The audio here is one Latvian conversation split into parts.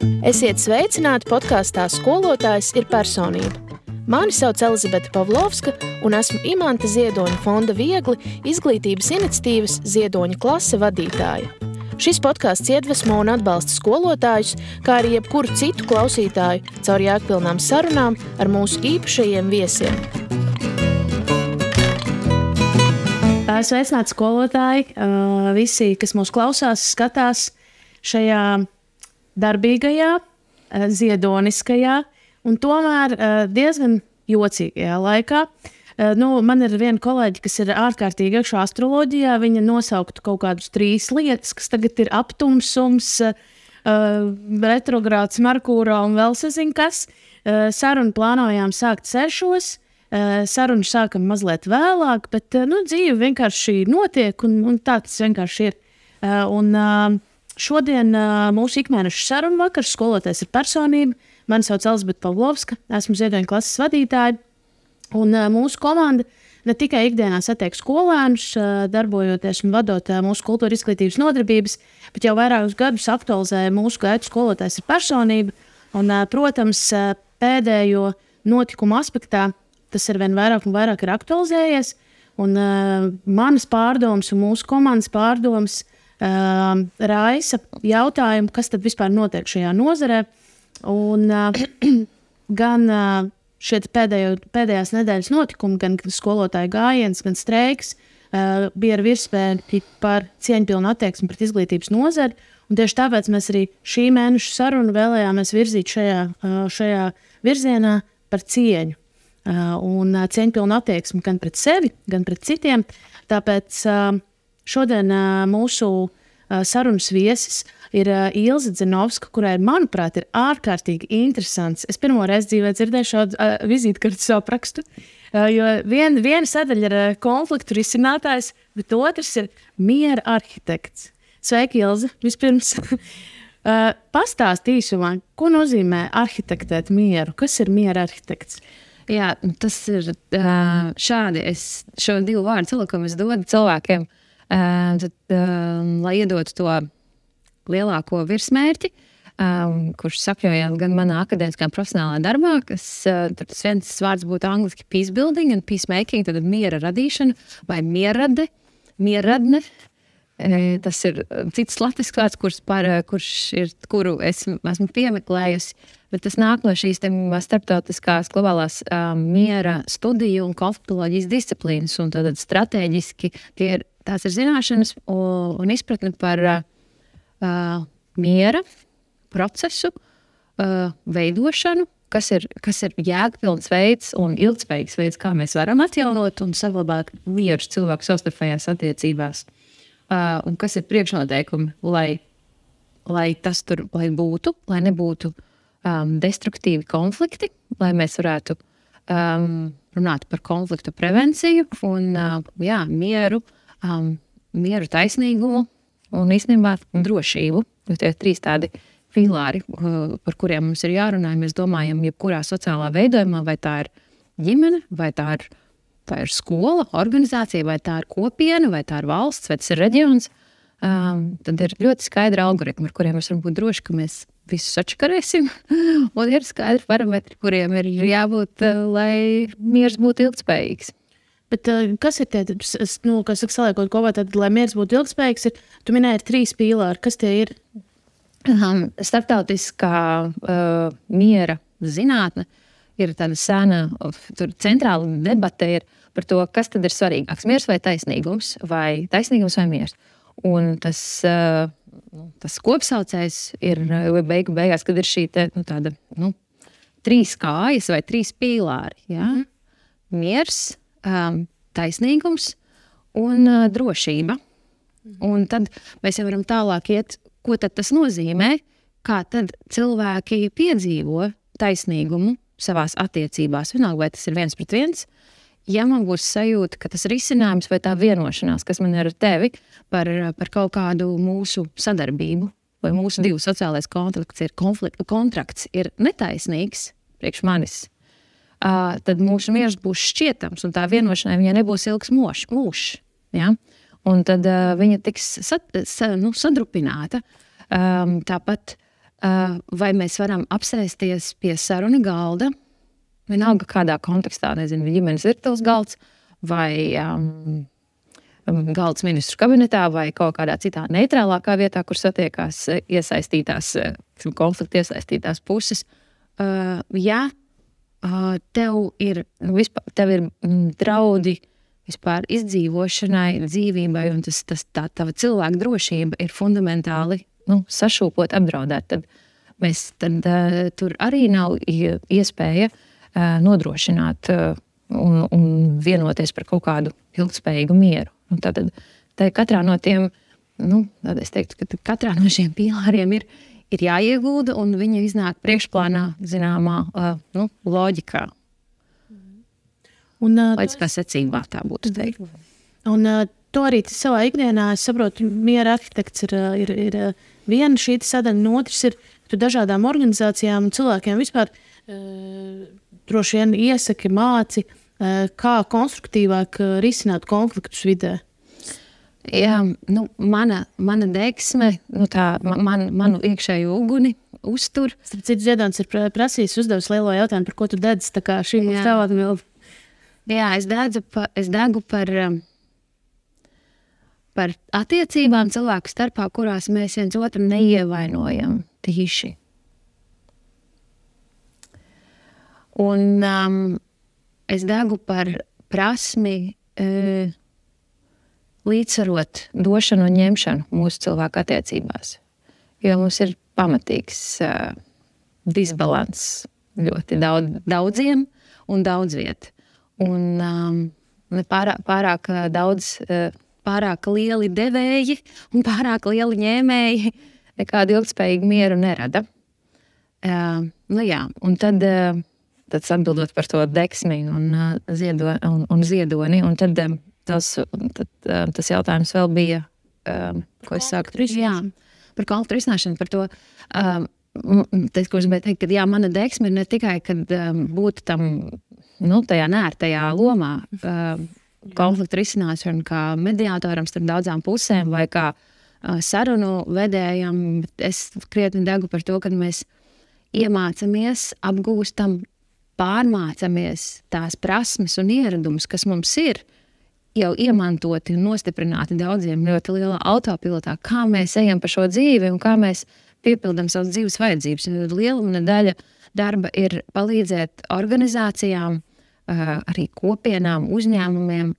Esiet sveicināti podkāstā Skolotājs ir personība. Mani sauc Elizabete Pavlovska un esmu Imanta Ziedoņa fonda Viegli izglītības iniciatīvas Ziedoņa klase vadītāja. Šis podkāsts iedvesmo un atbalsta skolotājus, kā arī jebkuru citu klausītāju caur jēgpilnām sarunām ar mūsu īpašajiem viesiem. Sveicināti skolotāji, visi, kas mūs klausās, skatās šajā darbīgajā, ziedoniskajā un tomēr diezgan jocīgajā laikā. Man ir viena kolēģi, kas ir ārkārtīgi iekšā astroloģijā. Viņa nosauktu kaut kādus 3 lietas, kas tagad ir aptumsums, retrogrāds Merkūrā un vēl sazin kas. Sarunu plānojām sākt 6. Sarunu sākam mazliet vēlāk, bet dzīve vienkārši notiek un tā tas vienkārši ir. Šodien mūsu ikmēneša sarunu vakars Skolotājs ir personība. Mani sauc Elizabete Pavlovska, esmu Ziedoņa klases vadītāja. Un mūsu komanda ne tikai ikdienā satiek skolēnus, darbojoties un vadot mūsu kultūra izglītības nodarbības, bet jau vairākus gadus aktualizē mūsu gaitu Skolotājs ir personība. Un, protams, pēdējo notikumu aspektā tas ir vien vairāk un vairāk ir aktualizējies. Un manas pārdomas un mūsu komandas pārdomas raisa jautājumu, kas tad vispār notiek šajā nozarē. Un gan šie pēdējās nedēļas notikumi, gan skolotāju gājiens, gan streiks bija ar virsmērķi par cieņpilnu attieksmi pret izglītības nozari. Un tieši tāpēc mēs arī šī mēneša sarunu vēlējāmies virzīt šajā virzienā par cieņu. Un cieņpilnu attieksmi gan pret sevi, gan pret citiem. Tāpēc šodien mūsu sarunas viesis ir Ilze Dzinovska, kurai, manuprāt, ir ārkārtīgi interesants. Es pirmo reizi dzīvē dzirdēju šādu vizītkartes aprakstu, jo viena sadaļa ir konfliktu risinātājs, bet otrs ir miera arhitekts. Sveiki, Ilze, vispirms. Pastāst īsumā, ko nozīmē arhitektēt mieru? Kas ir miera arhitekts? Jā, tas ir šādi. Es šo 2 vārdu cilvēkumu es dodu cilvēkiem, lai iedotu to lielāko virsmērķi, kurš sakļojās gan manā akadēmiskā profesionālā darbā, kas tas viens vārds būtu angliski peacebuilding un peacemaking, tad miera radīšana vai mierradne. Tas ir cits latviešu vārds, kuru esmu piemeklējusi, bet tas nāk no šīs starptautiskās globālās miera studiju un konfliktoloģijas disciplīnas. Un tad strateģiski tās ir zināšanas un izpratne par miera procesu veidošanu, kas ir jēgpilns veids un ilgspējīgs veids, kā mēs varam atjaunot un saglabāt mieru cilvēku savstarpējās attiecībās. Un kas ir priekšnoteikumi, lai tas tur būtu, lai nebūtu destruktīvi konflikti, lai mēs varētu runāt par konfliktu prevenciju un mieru, taisnīgumu un īstenībā drošību. Jo tie ir 3 tādi pilāri, par kuriem mums ir jārunā. Mēs domājam, jebkurā sociālā veidojumā, vai tā ir ģimene, vai tā ir skola, organizācija, vai tā ir kopiena, vai tā ir valsts, vai tas ir reģions. Tad ir ļoti skaidri algoritmi, ar kuriem mēs varam būt droši, ka mēs visus atšakarēsim. Un ir skaidri parametri, kuriem ir jābūt, lai miers būtu ilgspējīgs. Bet kas ir tie, kas saliekot kopā, tad, lai miers būtu ilgspējīgs, tu minēji 3 pīlāri. Kas tie ir? Starptautiskā miera zinātne ir tāda sena, tur centrāla debate ir par to, kas tad ir svarīgāks, miers vai taisnīgums vai miers. Un tas kopsaucējs ir beigās, kad ir šī tāda 3 kājas vai 3 pīlāri. Ja? Miers, taisnīgums un drošība. Un tad mēs jau varam tālāk iet, ko tad tas nozīmē, kā tad cilvēki piedzīvo taisnīgumu savās attiecībās. Vienalga, vai tas ir 1 pret 1, ja man būs sajūta, ka tas risinājums vai tā vienošanās, kas man ir ar tevi par kaut kādu mūsu sadarbību, vai mūsu 2 sociālais kontrakts ir netaisnīgs priekš manis, tad mūsu miers būs šķietams, un tā vienošanai viņai nebūs ilgs mūžs. Ja? Un tad viņa tiks sadrupināta. Tāpat vai mēs varam apsēsties pie sarunu galda, vienalga kādā kontekstā, nezinu, ģimenes virtuves galds, vai galds ministru kabinetā, vai kaut kādā citā neitrālākā vietā, kur satiekās konflikta iesaistītās puses. Ja tev ir draudi vispār izdzīvošanai, dzīvībai, un tā tava cilvēka drošība ir fundamentāli sašūpot, apdraudēt, tad tur arī nav iespēja nodrošināt un vienoties par kaut kādu ilgspējīgu mieru. Tātad katrā no tiem, es teiktu, ka katrā no šiem pīlāriem ir jāiegulda, un viņi iznāk priekšplānā zināmā loģikā. Loģiskā secībā tā būtu teikt. Un to arī savā ikdienā, es saprotu, miera arhitekts ir viena šī sadaļa, un otrs ir, tu dažādām organizācijām un cilvēkiem vispār droši vien iesaki, māci, kā konstruktīvāk risināt konfliktus vidē. Jā, mana deksme, manu iekšējo uguni uztur. Starp citu, Ziedons ir prasījis, uzdevis lielo jautājumu, par ko tu dedz, tā kā šī mums tev atbild. Jā, es degu par attiecībām cilvēku starpā, kurās mēs viens otru neievainojam tīši. Un es degu par prasmi līdzsvarot došanu un ņemšanu mūsu cilvēku attiecībās. Jo mums ir pamatīgs disbalans ļoti daudziem un daudz viet. Un pārāk daudz, pārāk lieli devēji un pārāk lieli ņēmēji nekādu ilgspējīgu mieru nerada. Un tad atbildot par to deksmi un ziedoni, un tad tas jautājums vēl bija, ko es sāku risināt. Par konfliktu risināšanu, par to, ko es gribēju teikt, ka mana deksme ir ne tikai, kad būtu tam tajā nērtajā lomā konfliktu risināšanu kā mediātoram starp daudzām pusēm vai kā sarunu vedējam, bet es krietni degu par to, kad mēs iemācamies, apgūstam, pārmācamies tās prasmes un ieradumus, kas mums ir jau iemantoti un nostiprināti daudziem ļoti lielā autopilotā, kā mēs ejam pa šo dzīvi un kā mēs piepildam savas dzīves vajadzības. Liela daļa darba ir palīdzēt organizācijām, arī kopienām, uzņēmumiem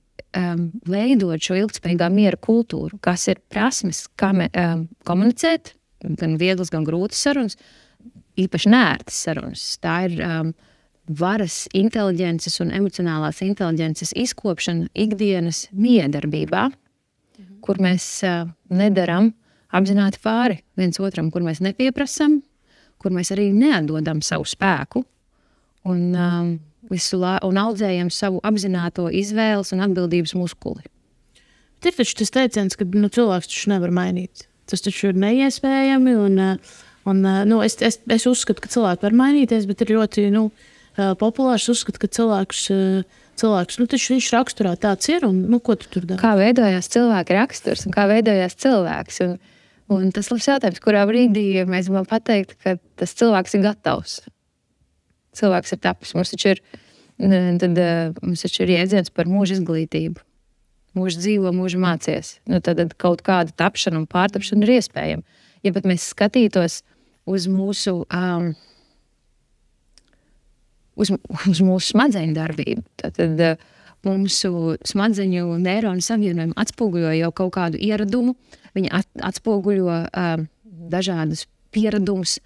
veidot šo ilgspējīgā miera kultūru, kas ir prasmes, kā komunicēt, gan vieglas, gan grūtas sarunas, īpaši nērtas sarunas. Tā ir varas, inteliģences un emocionālās inteliģences izkopšana ikdienas miedarbībā, kur mēs nedaram apzināti pāri viens otram, kur mēs nepieprasam, kur mēs arī neatdodam savu spēku un audzējam savu apzināto izvēles un atbildības muskuli. Ir taču tas teiciens, ka cilvēks taču nevar mainīt. Tas taču ir neiespējami, es uzskatu, ka cilvēki var mainīties, bet ir ļoti populārs uzskatu, ka cilvēks taču viņš raksturā tāds ir, un ko tu tur dari? Kā veidojās cilvēka raksturs un kā veidojās cilvēks? Un tas labs jautājums, kurā brīdī mēs varam pateikt, ka tas cilvēks ir gatavs. Cilvēks ir tapis. Mums taču ir jēdziens par mūža izglītību. Mūža dzīvo, mūža mācies. Tad kaut kāda tapšana un pārtapšana ir iespējama. Ja pat mēs skatītos uz mūsu smadzeņu darbību, tad mūsu smadzeņu neironu savienojumu atspoguļo jau kaut kādu ieradumu, viņi atspoguļo dažādus pieradumus,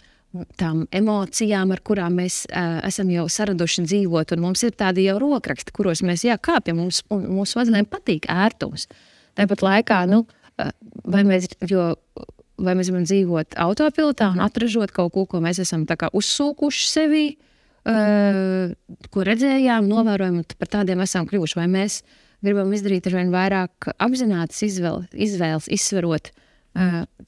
tām emocijām, ar kurām mēs esam jau saraduši dzīvot, un mums ir tādi jau rokraksti, kuros mēs kāpjam, mūsu smadzenēm patīk ērtums. Tāpat laikā, vai mēs varam dzīvot autopilotā un atražot kaut ko mēs esam tā kā uzsūkuši sevī, ko redzējām, novērojam, un par tādiem esam kļuvuši, vai mēs gribam izdarīt ar vien vairāk apzinātas izvēles, izsverot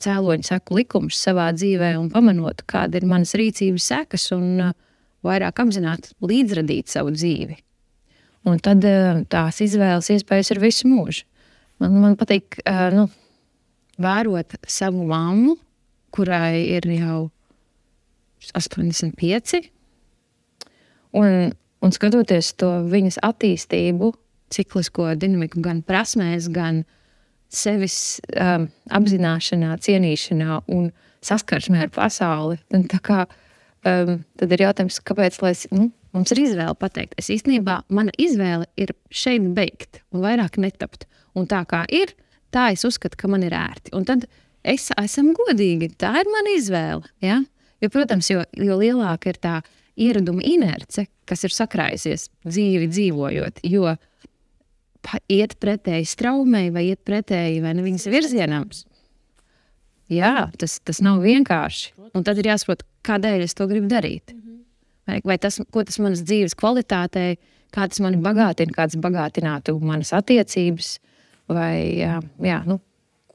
cēloņu seku likumus savā dzīvē un pamanot, kāda ir manas rīcības sekas un vairāk apzināti līdzradīt savu dzīvi. Un tad tās izvēles iespējas ir visu mūžu. Man patīk vērot savu mammu, kurai ir jau 85. Un skatoties to viņas attīstību, ciklisko dinamiku gan prasmēs, gan sevis apzināšanā, cienīšanā un saskarsmē ar pasauli. Tad ir jautājums, kāpēc mums ir izvēle pateikt. Es īstenībā, mana izvēle ir šeit beigt un vairāk netapt. Un tā kā ir, tā es uzskatu, ka man ir ērti. Un tad esam godīgi, tā ir mana izvēle. Ja? Jo, protams, jo lielāka ir tā ieraduma inerce, kas ir sakrājusies dzīvi dzīvojot, jo iet pretēji straumei vai iet pretēji vai ne viņas virzienam. Jā, tas nav vienkārši. Un tad ir jāsaprot, kādēļ es to gribu darīt. Vai tas, ko tas manas dzīves kvalitātei, kā tas mani bagātina, kāds bagātinātu manas attiecības, vai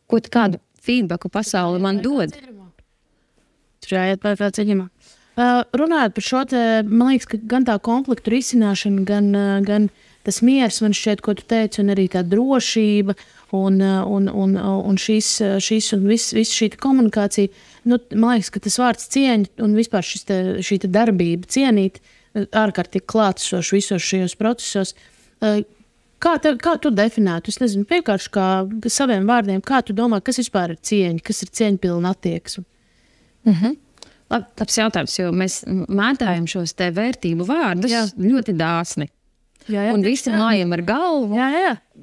kādu feedbacku pasauli man dod. Tur jāiet pār ceļamā. Runājot par šo, man liekas, ka gan tā konfliktu risināšana, gan tas miers, man šķiet, ko tu teici, un arī tā drošība un šis un viss šī komunikācija. Man liekas, ka tas vārds cieņa un vispār šī darbība cienīt ārkārtīgi klātesoši visos šajos procesos. Kā tu definētu? Es nezinu, vienkārši kā saviem vārdiem, kā tu domā, kas vispār ir cieņa, kas ir cieņpilna attieksme? Labs jautājums, jo mēs mētājam šos te vērtību vārdus ļoti dāsni. Un visi mājam ar galvu,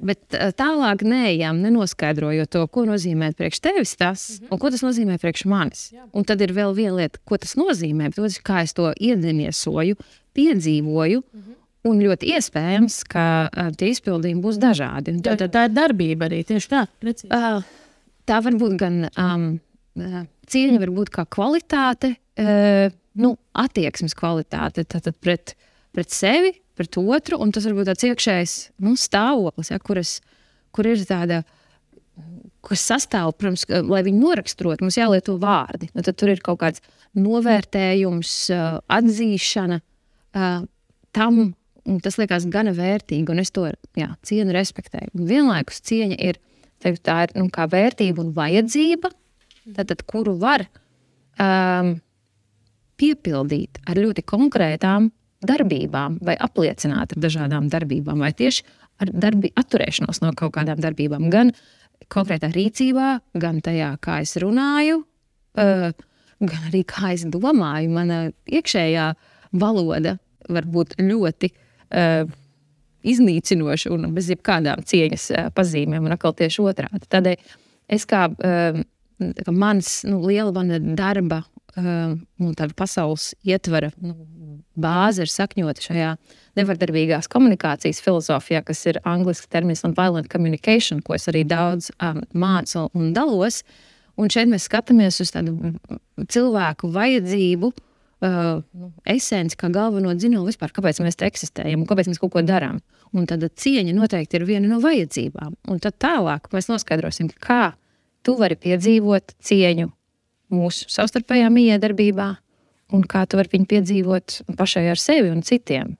bet tālāk neejam, nenoskaidrojot to, ko nozīmē priekš tevis tas, un ko tas nozīmē priekš manis. Un tad ir vēl viena lieta, ko tas nozīmē, bet kā es to iedeniesoju, piedzīvoju, un ļoti iespējams, ka tie izpildījumi būs dažādi. Tā ir darbība arī, tieši tā. Tā var būt gan cieņa, var būt kā kvalitāte, attieksmes kvalitāte, tātad pret sevi, pret otru, un tas var būt tāds iekšējs stāvoklis, kur ir tāda, kas sastāv, protams, lai viņu noraksturot, mums jālieto vārdi. Tad tur ir kaut kāds novērtējums, atzīšana tam, un tas liekas gana vērtīgi, un es to cienu, respektēju. Un vienlaikus cieņa ir, tā ir kā vērtība un vajadzība, tātad, kuru var piepildīt ar ļoti konkrētām darbībām vai apliecināt ar dažādām darbībām vai tieši ar atturēšanos no kaut kādām darbībām. Gan konkrētā rīcībā, gan tajā, kā es runāju, gan arī kā es domāju. Mana iekšējā valoda var būt ļoti iznīcinoša un bez jebkādām cieņas pazīmēm un atkal tieši otrādi. Tādēļ es kā mans liela darba un tāda pasaules ietvara bāze ir sakņota šajā nevardarbīgās komunikācijas filozofijā, kas ir angliski termins non-violent communication, ko es arī daudz mācu un dalos. Un šeit mēs skatāmies uz tādu cilvēku vajadzību, esenci kā galveno dzinulu vispār, kāpēc mēs te eksistējam un kāpēc mēs kaut ko darām. Un tad cieņa noteikti ir viena no vajadzībām. Un tad tālāk mēs noskaidrosim, kā tu vari piedzīvot cieņu mūsu savstarpējā miedarbībā un kā tu vari viņu piedzīvot pašai ar sevi un citiem.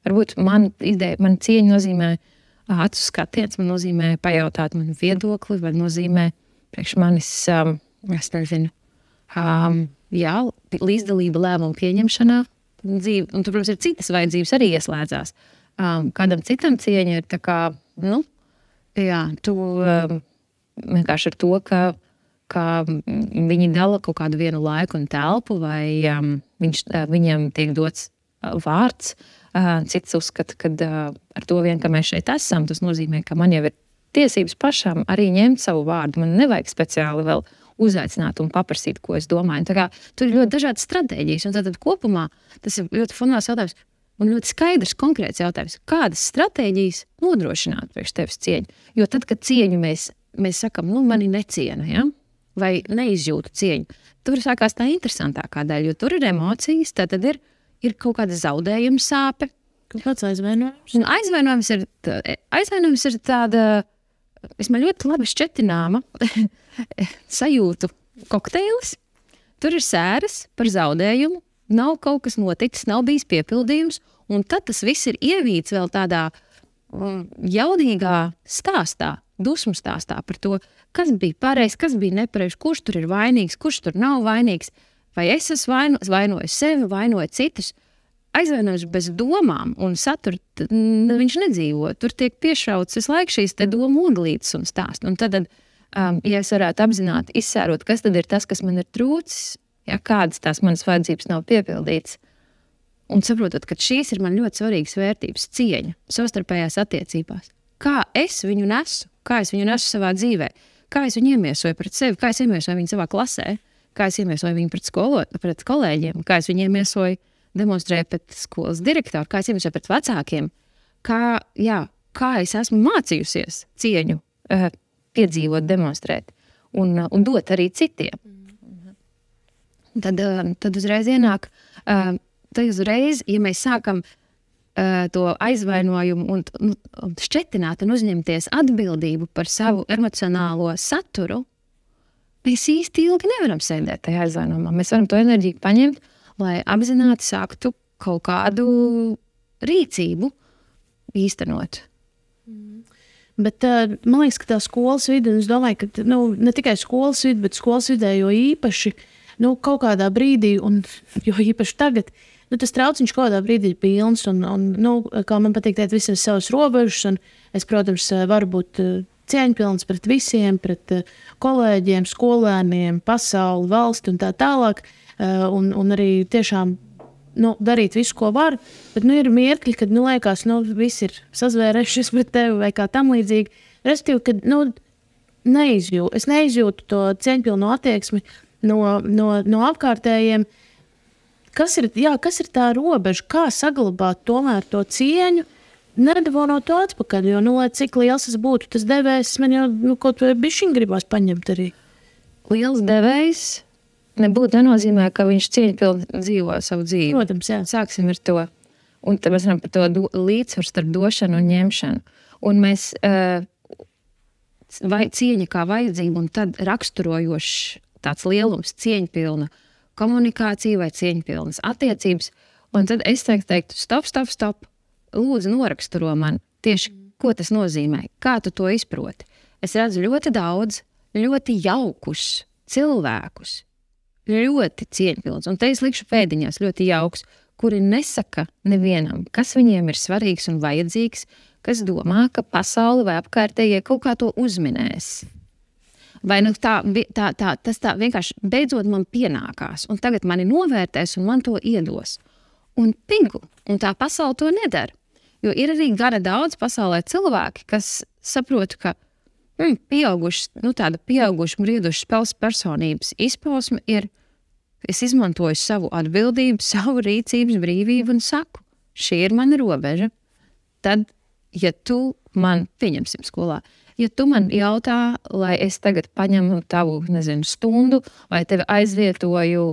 Varbūt man cieņa nozīmē acu skatiens, man nozīmē pajautāt manu viedokli, vai nozīmē priekš manis, es nezinu, līdzdalība lēmumu pieņemšanā dzīve. Un tur, protams, ir citas vajadzības arī ieslēdzās. Kādam citam cieņa ir tā kā, tu vienkārši ar to, ka viņi dala kaut kādu vienu laiku un telpu, vai viņiem tiek dots vārds. Cits uzskata, ka ar to vien, ka mēs šeit esam, tas nozīmē, ka man jau ir tiesības pašam arī ņemt savu vārdu. Man nevajag speciāli vēl uzaicināt un paprasīt, ko es domāju. Tā kā tur ir ļoti dažādas stratēģijas, un tad kopumā tas ir ļoti fundamentāls jautājums un ļoti skaidrs, konkrēts jautājums. Kādas stratēģijas nodrošināt priekš tevis cieņu? Jo tad, kad cieņu mēs sakam, mani neciena, vai neizjūtu cieņu, tur sākās tā interesantākā daļa, jo tur ir emocijas, tad ir kaut kāda zaudējuma sāpe. Kāds aizvainojums? Aizvainojums ir tāda, man ļoti labi šķetināma sajūtu kokteilis. Tur ir sēras par zaudējumu, nav kaut kas noticis, nav bijis piepildījums, un tad tas viss ir ievīts vēl tādā jaudīgā stāstā, dusmu stāstā par to, kas bija pareizs, kas bija nepareizs, kurš tur ir vainīgs, kurš tur nav vainīgs. vai es esmu vainoju sevi, vainoju citus. Aizvainojums bez domām un satura viņš nedzīvo. Tur tiek piešauts visu laiku šīs te domu oglītes un stāst. Un tad, ja es varētu apzināti izsērot, kas tad ir tas, kas man ir trūcis, ja kādas tās manas vajadzības nav piepildītas, un saprotot, ka šīs ir man ļoti svarīgas vērtības, cieņa, savstarpējās attiecībās. Kā es viņu nesu? Kā es viņu nesu savā dzīvē? Kā es viņu iemiesoju pret sevi? Kā es iemiesoju viņu savā klasē? Kā es iemiesoju viņu pret kolēģiem? Kā es viņu iemiesoju demonstrēju pret skolas direktoru? Kā es iemiesoju pret vecākiem? Kā es esmu mācījusies cieņu piedzīvot, demonstrēt un dot arī citiem? Tad uzreiz ienāk... Tad uzreiz, ja mēs sākam to aizvainojumu un šķetināt un uzņemties atbildību par savu emocionālo saturu, mēs īsti ilgi nevaram sēdēt tajā aizvainojumā. Mēs varam to enerģiju paņemt, lai apzināti sāktu kaut kādu rīcību īstenot. Bet man liekas, ka tā skolas vide, un es domāju, ka ne tikai skolas vide, bet skolas vidē jo īpaši kaut kādā brīdī, un jo īpaši tagad, tas trauciņš kaut kādā brīdī ir pilns, un kā man patīk teikt, visam savas robežas, un es, protams, varu būt cieņpilns pret visiem, pret kolēģiem, skolēniem, pasauli, valsti un tā tālāk, un arī tiešām darīt visu, ko var, bet ir mirkļi, kad liekas, viss ir sazvērējušies pret tevi vai kā tam līdzīgi. Respektīvi, kad es neizjūtu to cieņpilno attieksmi no apkārtējiem. Kas ir tā robeža? Kā saglabāt tomēr to cieņu, nedavonot to atpakaļ? Jo, lai cik liels tas būtu, tas devējs man jau kaut vai bišķiņ gribās paņemt arī. Liels devējs nebūtu nenozīmē, ka viņš cieņpilni dzīvo savu dzīvi. Protams, jā. Sāksim ar to. Un tad mēs varam par to līdzsvaru starp došanu un ņemšanu. Un mēs cieņa kā vajadzība un tad raksturojošs tāds lielums, cieņpilna komunikācija vai cieņpilnas attiecības, un tad es teiktu, stop, lūdzu noraksturo man tieši, ko tas nozīmē, kā tu to izproti. Es redzu ļoti daudz, ļoti jaukus cilvēkus, ļoti cieņpilns, un te es likšu pēdiņās ļoti jauks, kuri nesaka nevienam, kas viņiem ir svarīgs un vajadzīgs, kas domā, ka pasauli vai apkārtējie kaut kā to uzminēs. Vai tas tā vienkārši beidzot man pienākās, un tagad mani novērtēs un man to iedos. Un pingu, un tā pasaule to nedara. Jo ir arī gana daudz pasaulē cilvēki, kas saprot, ka tāda pieauguša, brieduša spēles personības izpausme ir, es izmantoju savu atbildību, savu rīcības brīvību un saku, šī ir mana robeža. Tad, ja tu man, pieņemsim skolā, ja tu man jautā, lai es tagad paņemu tavu, stundu, vai tevi aizvietoju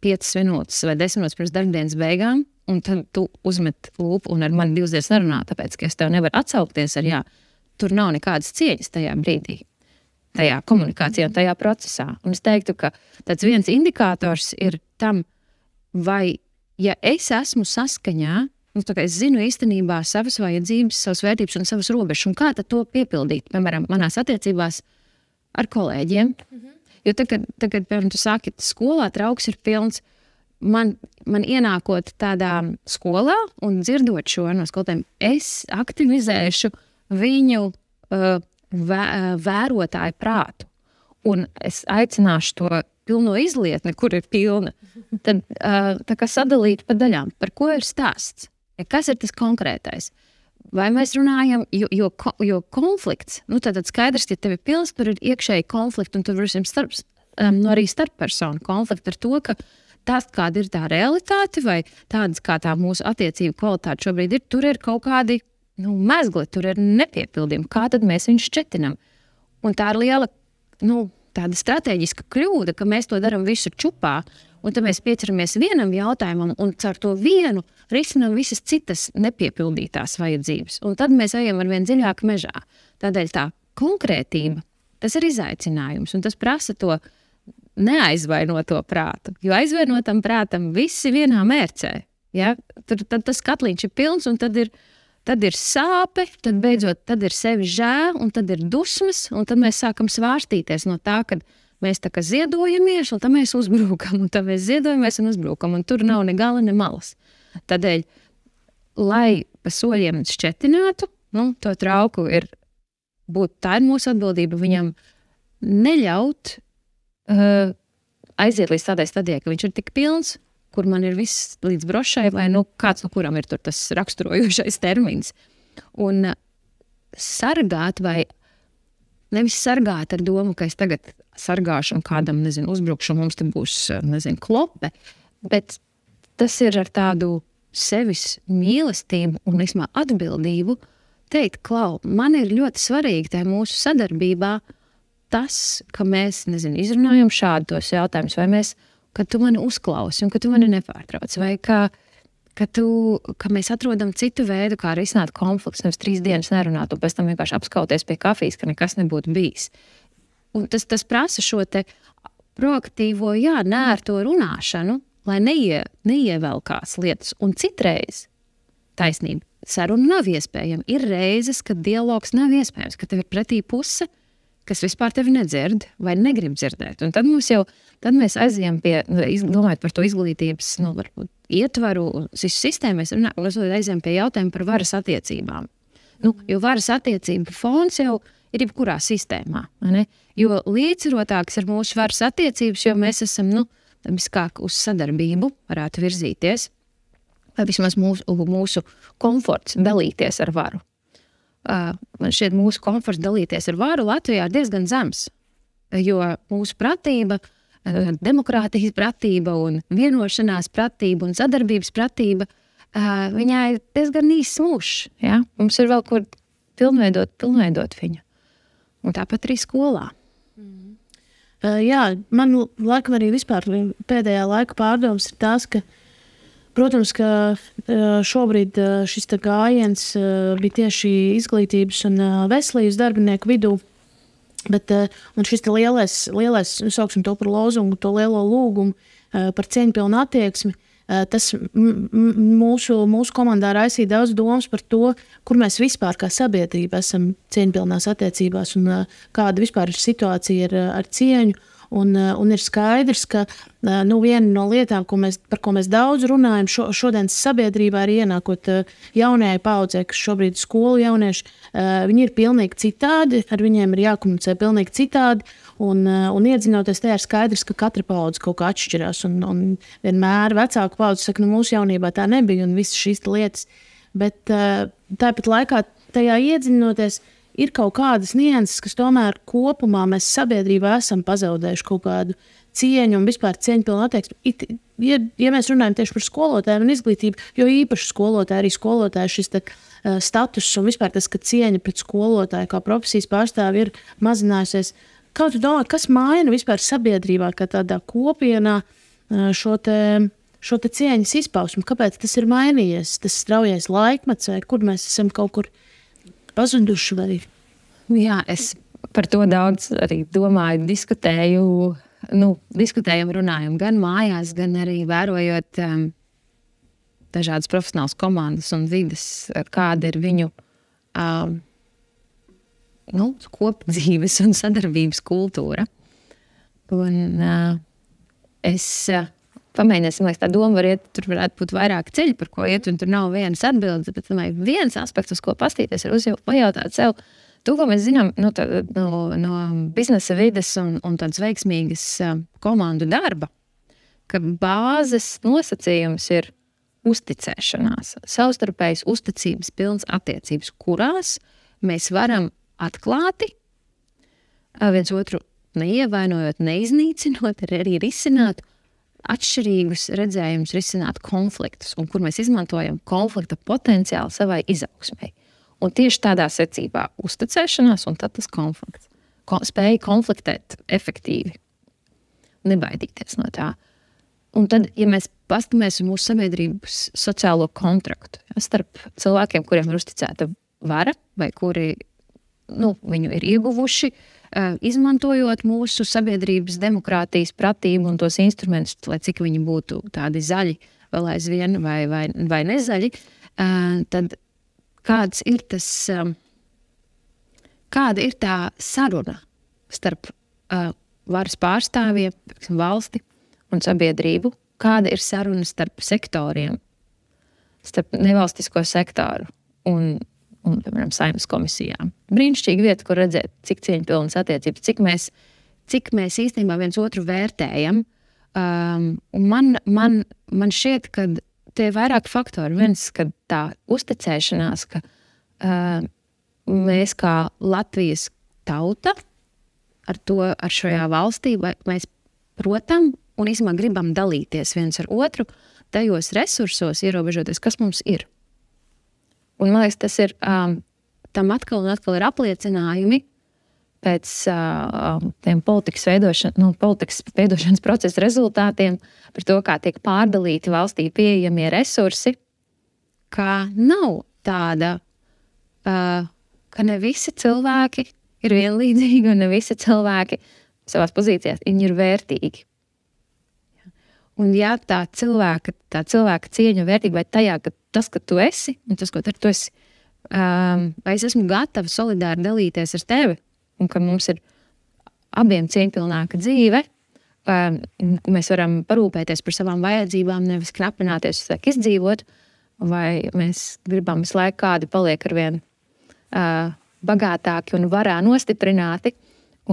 5 minūtes vai 10 minūtes pirms darbdienas beigām, un tad tu uzmet lūpu un ar mani 2 dienas nerunā, tāpēc, ka es tev nevaru atsaukties ar jā, tur nav nekādas cieņas tajā brīdī, tajā komunikācijā, tajā procesā. Un es teiktu, ka tāds viens indikators ir tam, vai, ja es esmu saskaņā, es zinu īstenībā savas vajadzības, savas vērtības un savas robežas, un kā tad to piepildīt, piemēram, manās attiecībās ar kolēģiem. Jo tagad, piemēram, tu sāki skolā, trauks ir pilns, man ienākot tādā skolā un dzirdot šo no skolotājiem, es aktivizēšu viņu vērotāju prātu, un es aicināšu to pilno izlietni, kur ir pilna, tad tā kā sadalīt pa daļām, par ko ir stāsts. Ja kas ir tas konkrētais? Vai mēs runājam, jo konflikts, tad skaidrs, ja tev ir pilns, tur ir iekšēji konflikti, un tur varēsim arī starppersonu konflikti ar to, ka tas, kāda ir tā realitāte, vai tādas, kā tā mūsu attiecību kvalitāte šobrīd ir, tur ir kaut kādi mezgli, tur ir nepiepildījumi. Kā tad mēs viņus šķetinam? Un tā ir liela, tāda strateģiska kļūda, ka mēs to daram visu čupā, un tad mēs pieceramies vienam jautājumam un caur to vienu risinām visas citas nepiepildītās vajadzības. Un tad mēs ejam ar vien dziļāk mežā. Tādēļ tā konkrētība, tas ir izaicinājums, un tas prasa to neaizvainoto prātu. Jo aizvainotam prātam visi vienā mērcē. Ja? Tad tas katliņš ir pilns, un tad ir sāpe, tad ir sevi žēl, un tad ir dusmas, un tad mēs sākam svārstīties no tā, ka mēs tā kā ziedojamies, un tad mēs uzbrukam, un tad mēs ziedojamies un uzbrukam, un tur nav ne gala, ne malas. Tādēļ, lai pa soļiem šķetinātu, to trauku tā ir mūsu atbildība viņam neļaut aiziet līdz tādai stadijai, ka viņš ir tik pilns, kur man ir viss līdz brošai, vai kāds no kuram ir tur tas raksturojošais termins. Un sargāt vai nevis sargāt ar domu, ka es tagad sargāšu un kādam, uzbrukšu, mums te būs, klope, bet tas ir ar tādu sevis mīlestību un atbildību teikt, Klau, man ir ļoti svarīgi tajā mūsu sadarbībā tas, ka mēs, izrunājam šādu tos jautājumus, vai mēs, ka tu mani uzklausi un ka tu mani nepārtrauc, vai ka mēs atrodam citu veidu, kā risināt konflikts, nevis 3 dienas nerunāt un pēc tam vienkārši apskauties pie kafijas, ka nekas nebūtu bijis. Un tas prasa šo te proaktīvo, nērto runāšanu, lai neievelkās lietas. Un citreiz taisnība, saruna nav iespējama. Ir reizes, kad dialogs nav iespējams, ka tev ir pretī puse, kas vispār tevi nedzird vai negrib dzirdēt. Un tad mēs aizējam pie, domājot par to izglītības, varbūt ietvaru, sistēmu, mēs aizējam pie jautājuma par varas attiecībām. Jo varas attiecība fons jau ir jebkurā sistēmā. Ne? Jo līdzsvarotāks ir mūsu varas attiecības, jo mēs esam, viskāk uz sadarbību varētu virzīties, vai vismaz mūsu komforts dalīties ar varu. Man šķiet, mūsu komforts dalīties ar varu Latvijā ir diezgan zems, jo mūsu pratība, demokrātijas pratība un vienošanās pratība un sadarbības pratība, viņai ir diezgan īsts mūžs. Ja? Mums ir vēl kur pilnveidot viņu. Un tāpat arī skolā. Jā, man laikam arī vispār pēdējā laika pārdomas ir tās, ka protams, ka šobrīd šis gājiens bija tieši izglītības un veselības darbinieku vidū, bet un šis lielais, sauksim to par lozungu, to lielo lūgumu par cieņpilnu attieksmi, tas mūsu komandā raisīja daudz domas par to, kur mēs vispār kā sabiedrība esam cieņpilnās attiecībās un kāda vispār ir situācija ar cieņu. Un ir skaidrs, ka viena no lietām, par ko mēs daudz runājam šodienas sabiedrībā, ir ienākot jaunajai paudzei, kas šobrīd ir skolu jaunieši, viņi ir pilnīgi citādi, ar viņiem ir jākomunicē pilnīgi citādi, un iedziļinoties tajā ir skaidrs, ka katra paudze kaut kā atšķirās, un vienmēr vecāku paudze saka, mūsu jaunībā tā nebija, un visas šīs lietas, bet tāpat laikā tajā iedziļinoties, ir kaut kādas nianses, kas tomēr kopumā mēs sabiedrībā esam pazaudējuši kaut kādu cieņu un vispār cieņpilnu attieksmi. Ja mēs runājam tieši par skolotājiem un izglītību, jo īpaši skolotāji, arī skolotāji šis status un vispār tas, ka cieņa pret skolotāju kā profesijas pārstāvi ir mazinājusies. Kā tu domā, kas maina vispār sabiedrībā, kā tādā kopienā šo te cieņas izpausmu? Kāpēc tas ir mainījies? Tas straujais laikmets vai kur mēs esam kaut kur pazuduši vai? Jā, es par to daudz arī domāju, diskutējam, runājam gan mājās, gan arī vērojot dažādas profesionālas komandas un vides, kāda ir viņu kopdzīves un sadarbības kultūra. Un es pamēģināsim, lai tā doma tur varētu būt vairāk ceļi, par ko iet, un tur nav vienas atbildes, bet viens aspekts, uz ko pastīties, ir pajautāt sev to, ko mēs zinām no biznesa vides un tādas veiksmīgas komandu darba, ka bāzes nosacījums ir uzticēšanās, savstarpējas uzticības pilns attiecības, kurās mēs varam atklāti viens otru neievainojot, neiznīcinot, arī risināt atšķirīgus redzējumus, risināt konfliktus, un kur mēs izmantojam konflikta potenciālu savai izaugsmei. Un tieši tādā secībā uzticēšanās un tad tas konflikts. Spēja konfliktēt efektīvi, nebaidīties no tā. Un tad, ja mēs paskatāmies uz mūsu sabiedrības sociālo kontraktu, starp cilvēkiem, kuriem ir uzticēta vara, vai kuri viņu ir ieguvuši, izmantojot mūsu sabiedrības demokrātijas pratību un tos instrumentus, lai cik viņi būtu tādi zaļi vēl aizvien vai nezaļi, tad kāda ir tā saruna starp varas pārstāvjiem, valsti un sabiedrību, kāda ir saruna starp sektoriem, starp nevalstisko sektoru un piemēram, Saeimas komisijām. Brīnišķīga vieta, kur redzēt, cik cieņpilnas attiecības, cik mēs īstenībā viens otru vērtējam. Un man šķiet, ka tie ir vairāk faktori. Viens, ka tā uzticēšanās, ka mēs kā Latvijas tauta ar šajā valstī, mēs protam un īstenībā gribam dalīties viens ar otru tajos resursos, ierobežoties, kas mums ir. Un man liekas, tas ir tam atkal un atkal ir apliecinājumi pēc tiem politikas veidošanas procesa rezultātiem par to, kā tiek pārdalīti valstī pieejamie resursi, kā nav tāda, ka ne visi cilvēki ir vienlīdzīgi un ne visi cilvēki savās pozīcijās viņi ir vērtīgi. Un ja tā cilvēka cieņa vērtība vai tajā, ka tas, ka tu esi, un tas, ko tu esi, vai es esmu gatava solidāri dalīties ar tevi, un ka mums ir abiem cieņpilnāka dzīve, mēs varam parūpēties par savām vajadzībām, nevis knapināties uz laiku izdzīvot, vai mēs gribam visu laiku kādi paliek arvien bagātāki un varā nostiprināti,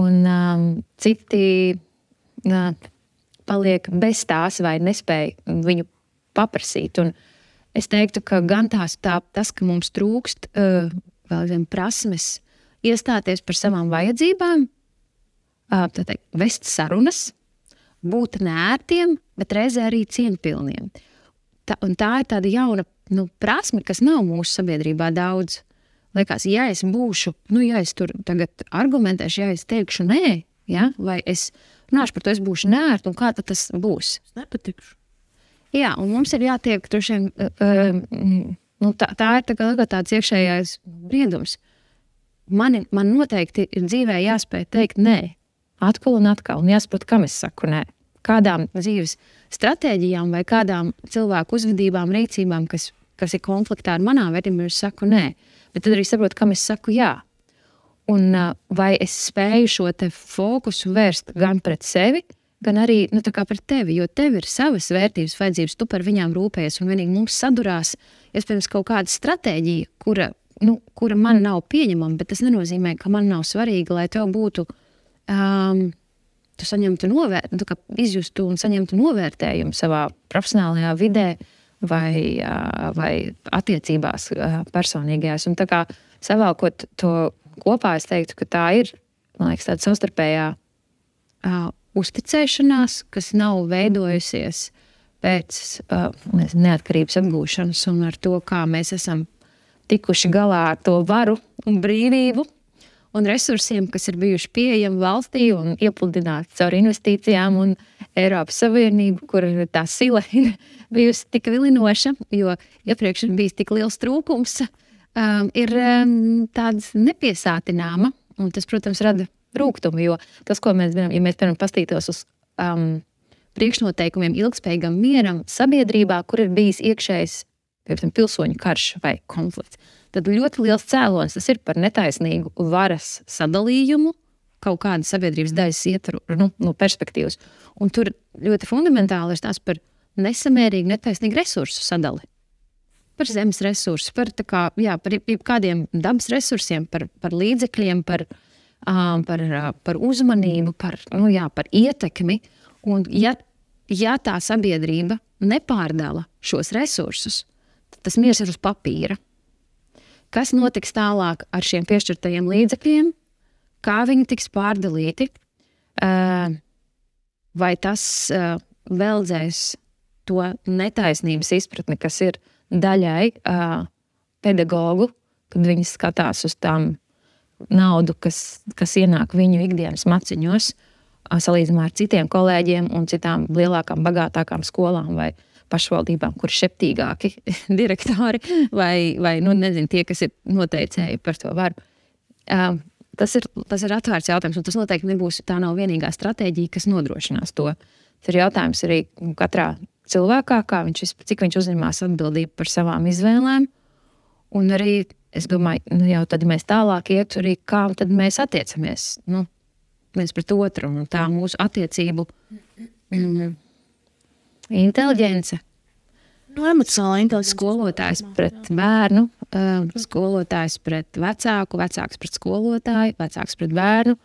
un citi paliek bez tās vai nespēja viņu paprasīt. Un es teiktu, ka gan tas, ka mums trūkst vēl zem prasmes iestāties par savām vajadzībām, vest sarunas, būt nērtiem, bet reizē arī cieņpilniem. Un tā ir tāda jauna prasme, kas nav mūsu sabiedrībā daudz. Liekas, ja es būšu, ja es tur tagad argumentēšu, ja es teikšu nē, ja, vai es runāšu par to, es būšu nērta, un kā tad tas būs? Es nepatikšu. Jā, un mums ir jātiek droši vien, tā ir tāds iekšējais briedums. Man noteikti ir dzīvē jāspēj teikt nē, atkal un atkal, un jāsaprot, kam es saku nē. Kādām dzīves stratēģijām vai kādām cilvēku uzvedībām, rīcībām, kas ir konfliktā ar manām vērtībām, es saku nē. Bet tad arī saprotu, kam es saku jā. Un vai es spēju šo te fokusu vērst gan pret sevi, gan arī pret tevi, jo tev ir savas vērtības, vajadzības, tu par viņām rūpējies, un vienīgi mums sadurās, iespējams, kaut kāda stratēģija, kura man nav pieņemama, bet tas nenozīmē, ka man nav svarīgi, lai tev būtu, tu saņemtu izjustu un saņemtu novērtējumu savā profesionālajā vidē vai attiecībās personīgajās. Un tā kā savākot to kopā, es teiktu, ka tā ir, man liekas, tāda savstarpējā uzticēšanās, kas nav veidojusies pēc neatkarības atgūšanas un ar to, kā mēs esam tikuši galā ar to varu un brīvību un resursiem, kas ir bijuši pieejami valstī un iepludināti caur investīcijām un Eiropas Savienību, kur tā sila ir bijusi tik vilinoša, jo iepriekš ir bijis tik liels trūkums, ir tāds nepiesātināma, un tas, protams, rada rūgtumu, jo tas, ko mēs zinām, ja mēs, piemēram, pastītos uz priekšnoteikumiem ilgspējīgam mieram sabiedrībā, kur ir bijis iekšējs, piemēram, pilsoņu karš vai konflikts, tad ļoti liels cēlonis tas ir par netaisnīgu varas sadalījumu, kaut kāda sabiedrības daļas ietvaru, no perspektīvas. Un tur ļoti fundamentāli ir tās par nesamērīgu, netaisnīgu resursu sadali. Par zemes resursu, par kādiem dabas resursiem, par līdzekļiem, par uzmanību, par ietekmi. Un ja tā sabiedrība nepārdala šos resursus, tad tas miers ir uz papīra. Kas notiks tālāk ar šiem piešķirtajiem līdzekļiem? Kā viņi tiks pārdalīti? Vai tas veldzēs to netaisnības izpratni, kas ir daļai pedagogu, kad viņi skatās uz tām naudu, kas ienāk viņu ikdienas maciņos, salīdzinājumā ar citiem kolēģiem un citām lielākām, bagātākām skolām vai pašvaldībām, kur šeptīgāki direktori vai nezinu, tie, kas ir noteicēji par to varu. Tas ir atvērts jautājums, un tas noteikti nebūs, tā nav vienīgā stratēģija, kas nodrošinās to. Tas ir jautājums arī katrā cilvēkā, cik viņš uzņemās atbildību par savām izvēlēm, un arī, es domāju, jau tad mēs tālāk iet arī, kā tad mēs attiecamies, viens pret otru, un tā mūsu attiecību inteliģence. Emocionāla inteliģence. Skolotājs pret bērnu, skolotājs pret vecāku, vecāks pret skolotāju, vecāks pret bērnu.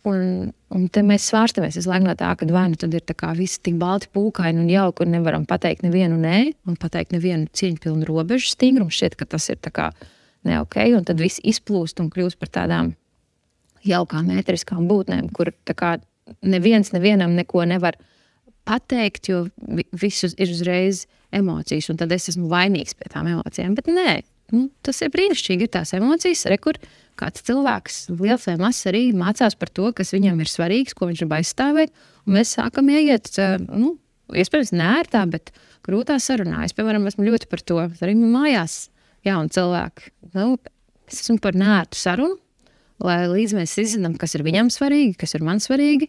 Un te mēs svārstamies visu laiku no tā, ka vai nu tad ir tā kā visi tik balti pūkaini un jauki, un nevaram pateikt nevienu nē, un pateikt nevienu cieņpilnu robežu stingrumu. Šķiet, ka tas ir tā kā ne ok, un tad viss izplūst un kļūst par tādām jaukām ēteriskām būtnēm, kur tā kā nevienam neko nevar pateikt, jo visus ir uzreiz emocijas, un tad es esmu vainīgs pie tām emocijām. Bet nē, tas ir brīnišķīgi, ir tās emocijas, kur kāds cilvēks, liels vai mazs, arī mācās par to, kas viņam ir svarīgs, ko viņš grib aizstāvēt, un mēs sākam ieiet, iespējams neērtā, bet grūtā sarunā. Es, piemēram, esmu ļoti par to, arī mājās jauni cilvēki. Es esmu par neērtu sarunu, lai līdz mēs izzinām, kas ir viņam svarīgi, kas ir man svarīgi,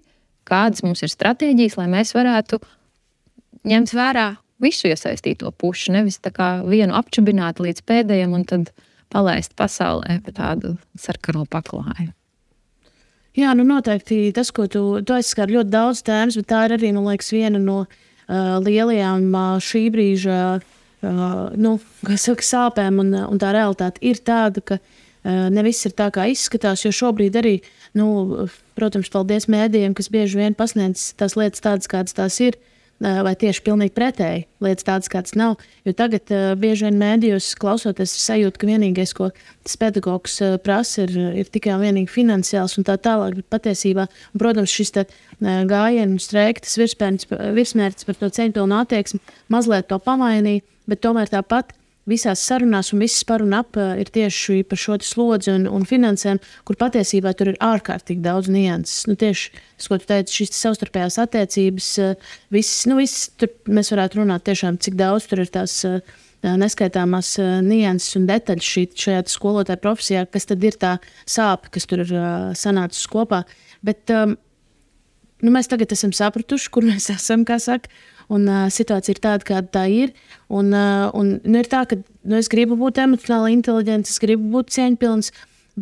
kādas mums ir stratēģijas, lai mēs varētu ņemt vērā visu iesaistīto pušu, nevis tā kā vienu apčubināt līdz pēdējiem un tad palaist pasaulē pa tādu sarkano paklāju. Jā, noteikti tas, ko tu aizskar ļoti daudz tēmas, bet tā ir arī, man liekas, viena no lielajām šī brīža sāpēm, un tā realitāte ir tāda, ka ne viss ir tā, kā izskatās, jo šobrīd arī, protams, paldies mēdījiem, kas bieži vien pasniedz tās lietas tādas, kādas tās ir, vai tieši pilnīgi pretēji lietas tādas, kādas nav. Jo tagad bieži vien mēdījos klausoties sajūta, ka vienīgais, ko tas pedagogs prasa, ir tikai un vienīgi finansiāls un tā tālāk. Bet patiesībā, un, protams, šis gājienu streika, tas virsmērķis par to cieņpilnu attieksmi mazliet to pamainīja, bet tomēr tāpat visās sarunās un viss par un ap ir tieši par šo slodzi un finansēm, kur patiesībā tur ir ārkārtīgi daudz nianses. Tieši tas, ko tu teici, šīs savstarpējās attiecības, viss tur mēs varētu runāt tiešām, cik daudz tur ir tās neskaitāmās nianses un detaļas šajā skolotāja profesijā, kas tad ir tā sāpe, kas tur ir sanācis kopā. Bet mēs tagad esam sapratuši, kur mēs esam, kā saka, un situācija ir tāda, kāda tā ir. Un ir tā, ka es gribu būt emocionāli inteliģents, es gribu būt cieņpilns,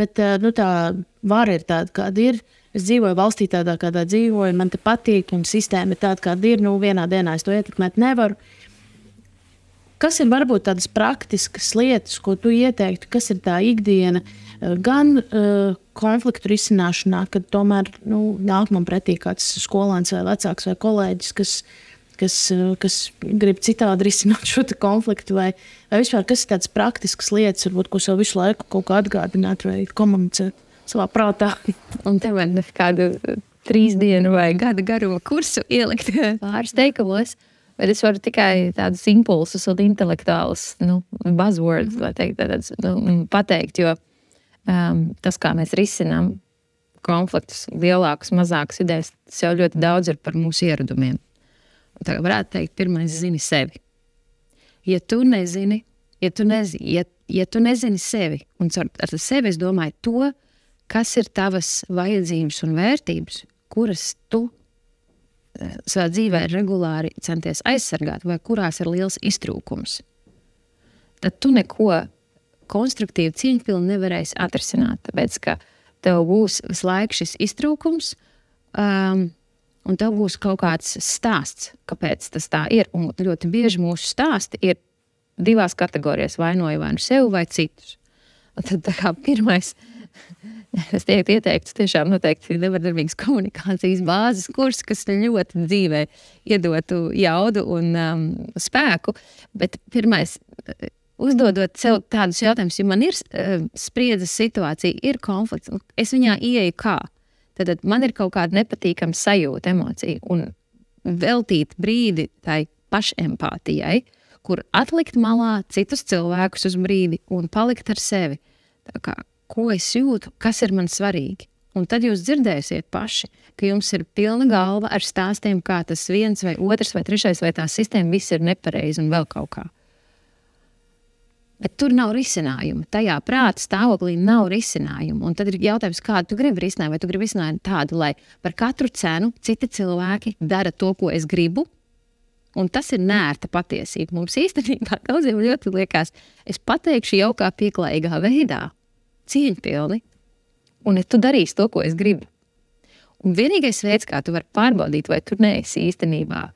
bet tā vara ir tāda, kāda ir. Es dzīvoju valstī tādā, kādā dzīvoju, man te patīk, un sistēma ir tāda, kāda ir. Vienā dienā es to ietekmēt nevaru. Kas ir varbūt tādas praktiskas lietas, ko tu ieteiktu, kas ir tā ikdiena, gan konfliktu risināšanā, kad tomēr nāk man pretī kāds skolēns vai vecāks vai kolēģis, kas grib citādi risināt šo konfliktu, vai vispār kas ir tādas praktiskas lietas, varbūt, ko sev visu laiku kaut kā atgādināt vai komunicēt savā prātā. Un te man kādu 3 dienu vai gada garuma kursu ielikt pāris teikumos, bet es varu tikai tādus impulsus un intelektuālus buzzwords, lai teikt, pateikt, jo tas, kā mēs risinām konfliktus, lielākus, mazākus idejas, tas jau ļoti daudz ir par mūsu ieradumiem. Tā varētu teikt, pirmais zini sevi. Ja tu nezini sevi, un ar sevi es domāju to, kas ir tavas vajadzības un vērtības, kuras tu savā dzīvē regulāri centies aizsargāt, vai kurās ir liels iztrūkums, tad tu neko konstruktīvi cieņpilni nevarēsi atrisināt, tāpēc, ka tev būs visu laiku šis iztrūkums, un tev būs kaut kāds stāsts, kāpēc tas tā ir. Un ļoti bieži mūsu stāsti ir 2 kategorijās, vainoju vai nu sev vai citus. Un tad tā kā pirmais, es ieteiktu tiešām noteikti nevardarbīgas komunikācijas bāzes kurs, kas ļoti dzīvē iedotu jaudu un spēku. Bet pirmais, uzdodot sev tādus jautājumus, ja man ir spriedzes situācija, ir konflikts, es viņā ieeju kā? Tad man ir kaut kāda nepatīkama sajūta, emocija, un veltīt brīdi tai pašempātijai, kur atlikt malā citus cilvēkus uz brīdi un palikt ar sevi. Tā kā, ko es jūtu, kas ir man svarīgi. Un tad jūs dzirdēsiet paši, ka jums ir pilna galva ar stāstiem, kā tas viens vai otrs vai trešais vai tā sistēma viss ir nepareizi un vēl kaut kā. Bet tur nav risinājumu. Tajā prāta stāvoklī nav risinājumu. Un tad ir jautājums, kādu tu gribi risināt. Vai tu gribi risināt tādu, lai par katru cenu citi cilvēki dara to, ko es gribu? Un tas ir neērta patiesība. Mums īstenībā daudziem ļoti liekas, es pateikšu jaukā pieklājīgā veidā, cieņpilni, un tu darīsi to, ko es gribu. Un vienīgais veids, kā tu vari pārbaudīt, vai tu neesi īstenībā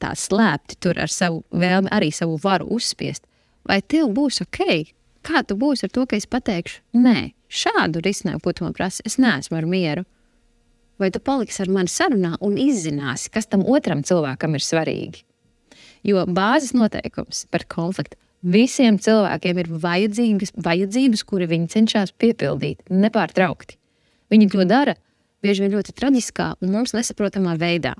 tā slēpti tur ar savu vēlmi, arī savu varu uzspiest, vai tev būs ok, kā tu būsi ar to, ka es pateikšu, nē, šādu risinājumu, ko tu man prasi, es neesmu ar mieru. Vai tu paliksi ar mani sarunā un izzināsi, kas tam otram cilvēkam ir svarīgi. Jo bāzes noteikums par konfliktu visiem cilvēkiem ir vajadzības, kuri viņi cenšas piepildīt nepārtraukti. Viņi to dara bieži vien ļoti traģiskā un mums nesaprotamā veidā.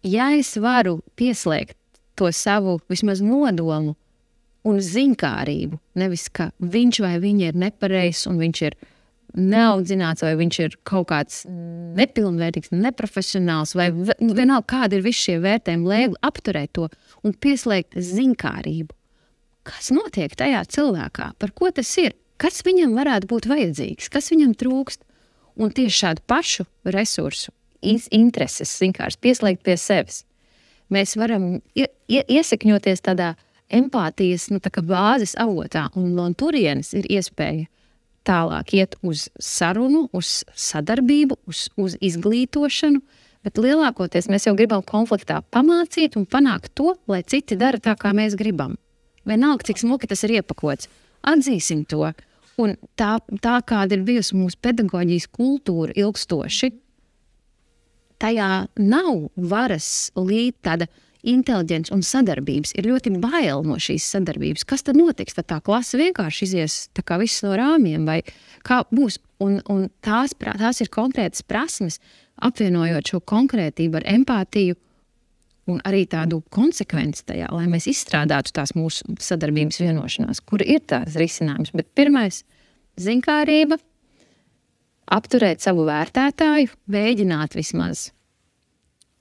Ja es varu pieslēgt to savu vismaz nodomu un ziņkārību, nevis ka viņš vai viņa ir nepareizs un viņš ir neaudzināts vai viņš ir kaut kāds nepilnvērtīgs, neprofesionāls vai vienalga kādi ir visi šie vērtējumi, lai apturēt to un pieslēgt ziņkārību. Kas notiek tajā cilvēkā? Par ko tas ir? Kas viņam varētu būt vajadzīgs? Kas viņam trūkst? Un tieši šādu pašu resursu, intereses vienkārši pieslēgt pie sevis. Mēs varam iesakņoties tādā empātijas tā kā bāzes avotā, un no turienes ir iespēja tālāk iet uz sarunu, uz sadarbību, uz izglītošanu, bet lielākoties mēs jau gribam konfliktā pamācīt un panākt to, lai citi dara tā, kā mēs gribam. Vienalga, cik smuki tas ir iepakots. Atzīsim to. Un tā kāda ir bijusi mūsu pedagoģijas kultūra ilgstoši, tajā nav varas līdz tāda inteliģence un sadarbības. Ir ļoti bail no šīs sadarbības. Kas tad notiks? Tad tā klase vienkārši izies tā kā viss no rāmjiem, vai kā būs? Un tās ir konkrētas prasmes, apvienojot šo konkrētību ar empātiju un arī tādu konsekvenci tajā, lai mēs izstrādātu tās mūsu sadarbības vienošanās, kur ir tās risinājums. Bet pirmais – ziņkārība, apturēt savu vērtētāju, mēģināt vismaz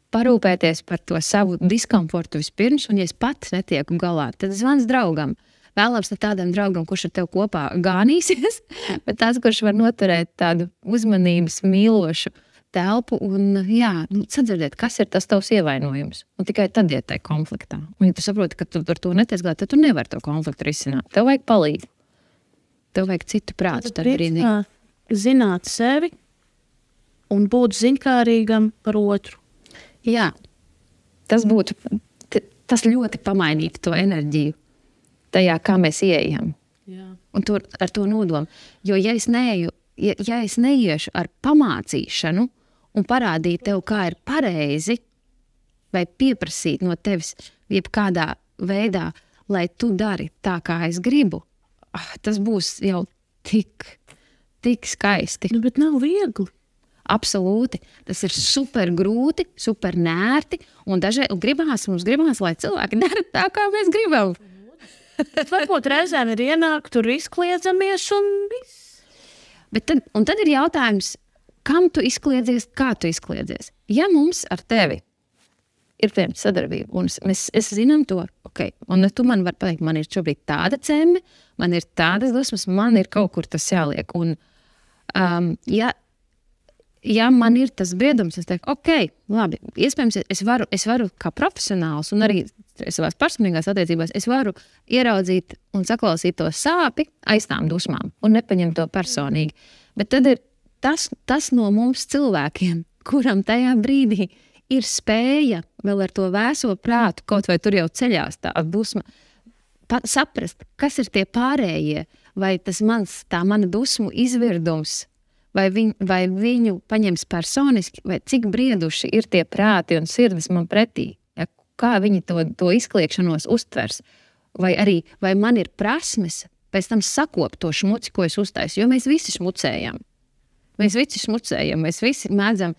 parūpēties par to savu diskomfortu vispirms, un ja es pats netieku galā, tad zvans draugam. Vēlams ne tādam draugam, kurš ar tev kopā gānīsies, bet tāds, kurš var noturēt tādu uzmanības mīlošu telpu un sadzirdēt, kas ir tas tavs ievainojums. Un tikai tad iet tajā konfliktā. Un ja tu saproti, ka tu ar to netiec galā, tad tu nevari to konfliktu risināt. Tev vajag palīdzību. Tev vajag citu prātu. Zināt sevi un būt ziņkārīgam par otru. Jā, tas ļoti pamainītu to enerģiju tajā, kā mēs ieejam. Jā. Un ar to nodomu. Jo ja es neiešu ar pamācīšanu un parādīt tev, kā ir pareizi, vai pieprasīt no tevis jebkādā veidā, lai tu dari tā, kā es gribu, tas būs jau tik skaisti. Bet nav viegli. Absolūti. Tas ir super grūti, super nērti, un mums gribās, lai cilvēki dara tā, kā mēs gribam. Varbūt reizēm ir ienāk, tur izkliedzamies un viss. Bet tad ir jautājums, kam tu izkliedzies, kā tu izkliedzies. Ja mums ar tevi ir sadarbība, un es zinām to, ok, un tu man vari pateikt, man ir šobrīd tāda ceme, man ir tādas dusmas, man ir kaut kur tas jāliek. Un, ja man ir tas briedums, es teiktu, ok, labi, iespējams, es varu kā profesionāls un arī savās personīgās attiecībās, es varu ieraudzīt un saklausīt to sāpi aiz tām dusmām un nepaņemt to personīgi. Bet tad ir tas no mums cilvēkiem, kuram tajā brīdī ir spēja vēl ar to vēso prātu, kaut vai tur jau ceļās tā dusma, saprast, kas ir tie pārējie, vai tā mana dusmu izvirdums, vai viņu paņems personiski, vai cik brieduši ir tie prāti un sirdis man pretī, ja, kā viņi to izkliekšanos uztvers, vai man ir prasmes pēc tam sakopt to šmuci, ko es uztaisu, jo mēs visi smucējam. Mēs visi mēdzam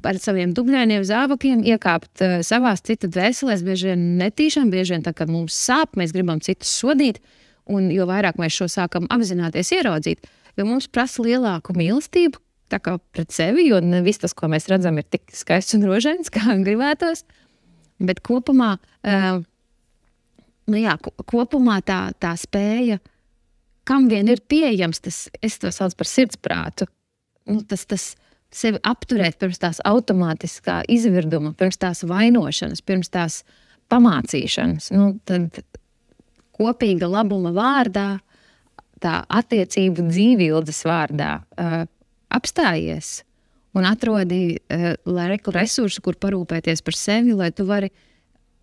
ar saviem dubļainiem zābakiem iekāpt savās citu dvēselēs, bieži vien netīšām, bieži vien tā, kad mums sāp, mēs gribam citus sodīt, un jo vairāk mēs šo sākam apzināties ieraudzīt, jo mums prasa lielāku mīlestību, tā kā pret sevi, jo ne viss tas, ko mēs redzam, ir tik skaists un rožains, kā gribētos, bet kopumā, kopumā tā spēja, kam vien ir pieejams, es to saucu par sirdsprātu, tas sevi apturēt pirms tās automātiskā izvirduma, pirms tās vainošanas, pirms tās pamācīšanas. Tad kopīga labuma vārdā, tā attiecību dzīvības vārdā apstājies un atrodi resursu, kur parūpēties par sevi, lai tu vari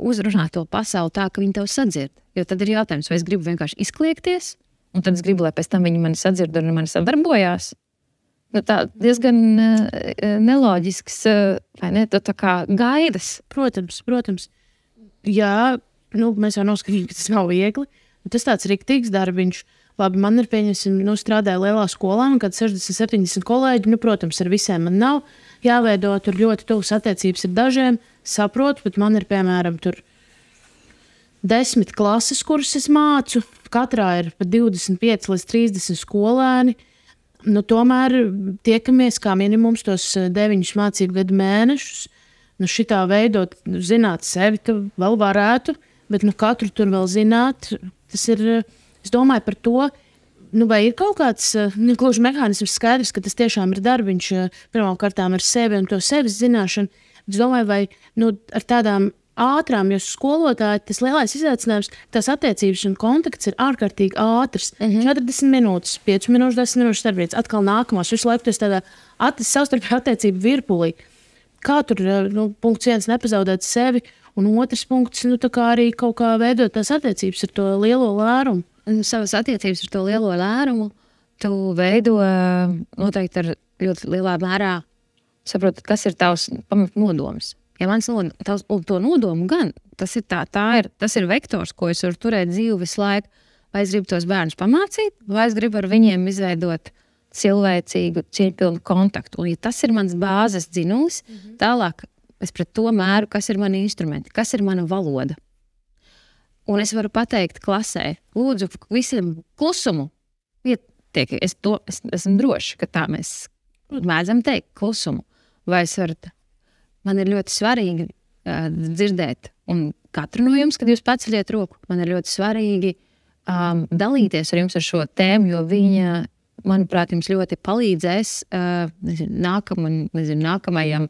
uzrunāt to pasauli tā, ka viņi tev sadzird. Jo tad ir jautājums, vai es gribu vienkārši izkliegties, un tad es gribu, lai pēc tam viņi mani sadzird un mani sadarbojās. Nu, tā diezgan neloģisks, vai ne, tā kā gaidas. Protams. Jā, mēs jau noskatījām, ka tas nav viegli. Tas tāds riktīgs darbiņš. Labi, man ir pieņemsim, strādāja lielā skolā, un kad 60-70 kolēģi, protams, ar visiem man nav jāveido, tur ļoti tuvas attiecības ar dažiem, saprotu, bet man ir, piemēram, tur 10 klases, kuras es mācu, katrā ir pa 25 līdz 30 skolēni, tomēr tiekamies kā minimums tos 9 mācību gadu mēnešus, šitā veidot, zināt sevi, tu vēl varētu, bet katru tur vēl zināt, tas ir... Es domāju par to, vai ir kaut kāds gluži mehānisms skaidrs, ka tas tiešām ir darbiņš pirmām kārtām ar sevi un to sevis zināšanu. Es domāju, vai ar tādām ātrām, jo skolotāji tas lielais izaicinājums, tās attiecības un kontakts ir ārkārtīgi ātrs. 40 minūtes, 5 minūtes, 10 minūtes starpbrīdis, atkal nākamās. Visu laiku tas tādā savstarpēju attiecību virpulī. Kā tur punkts 1 nepazaudēt sevi, un otrs punkts tā kā arī kaut kā veidot tās attiecības ar to lielo lērumu. Savas attiecības ar to lielo lērumu tu veido noteikti ar ļoti lielā mērā saprot, kas ir tavs pamatnodoms. Ja mans to nodomu gan, tas ir vektors, ko es varu turēt dzīvi visu laiku. Vai es gribu tos bērnus pamācīt, vai es gribu ar viņiem izveidot cilvēcīgu, cieņpilnu kontaktu. Un ja tas ir mans bāzes dzinulis, tālāk es pret to mēru, kas ir mani instrumenti, kas ir mana valoda. Un es varu pateikt klasē, lūdzu, visiem klusumu. Es esmu droši, ka tā mēs mēdzam teikt klusumu. Vai es varu, man ir ļoti svarīgi dzirdēt, un katru no jums, kad jūs paceļiet roku, man ir ļoti svarīgi dalīties ar jums ar šo tēmu, jo viņa, manuprāt, jums ļoti palīdzēs nākamajam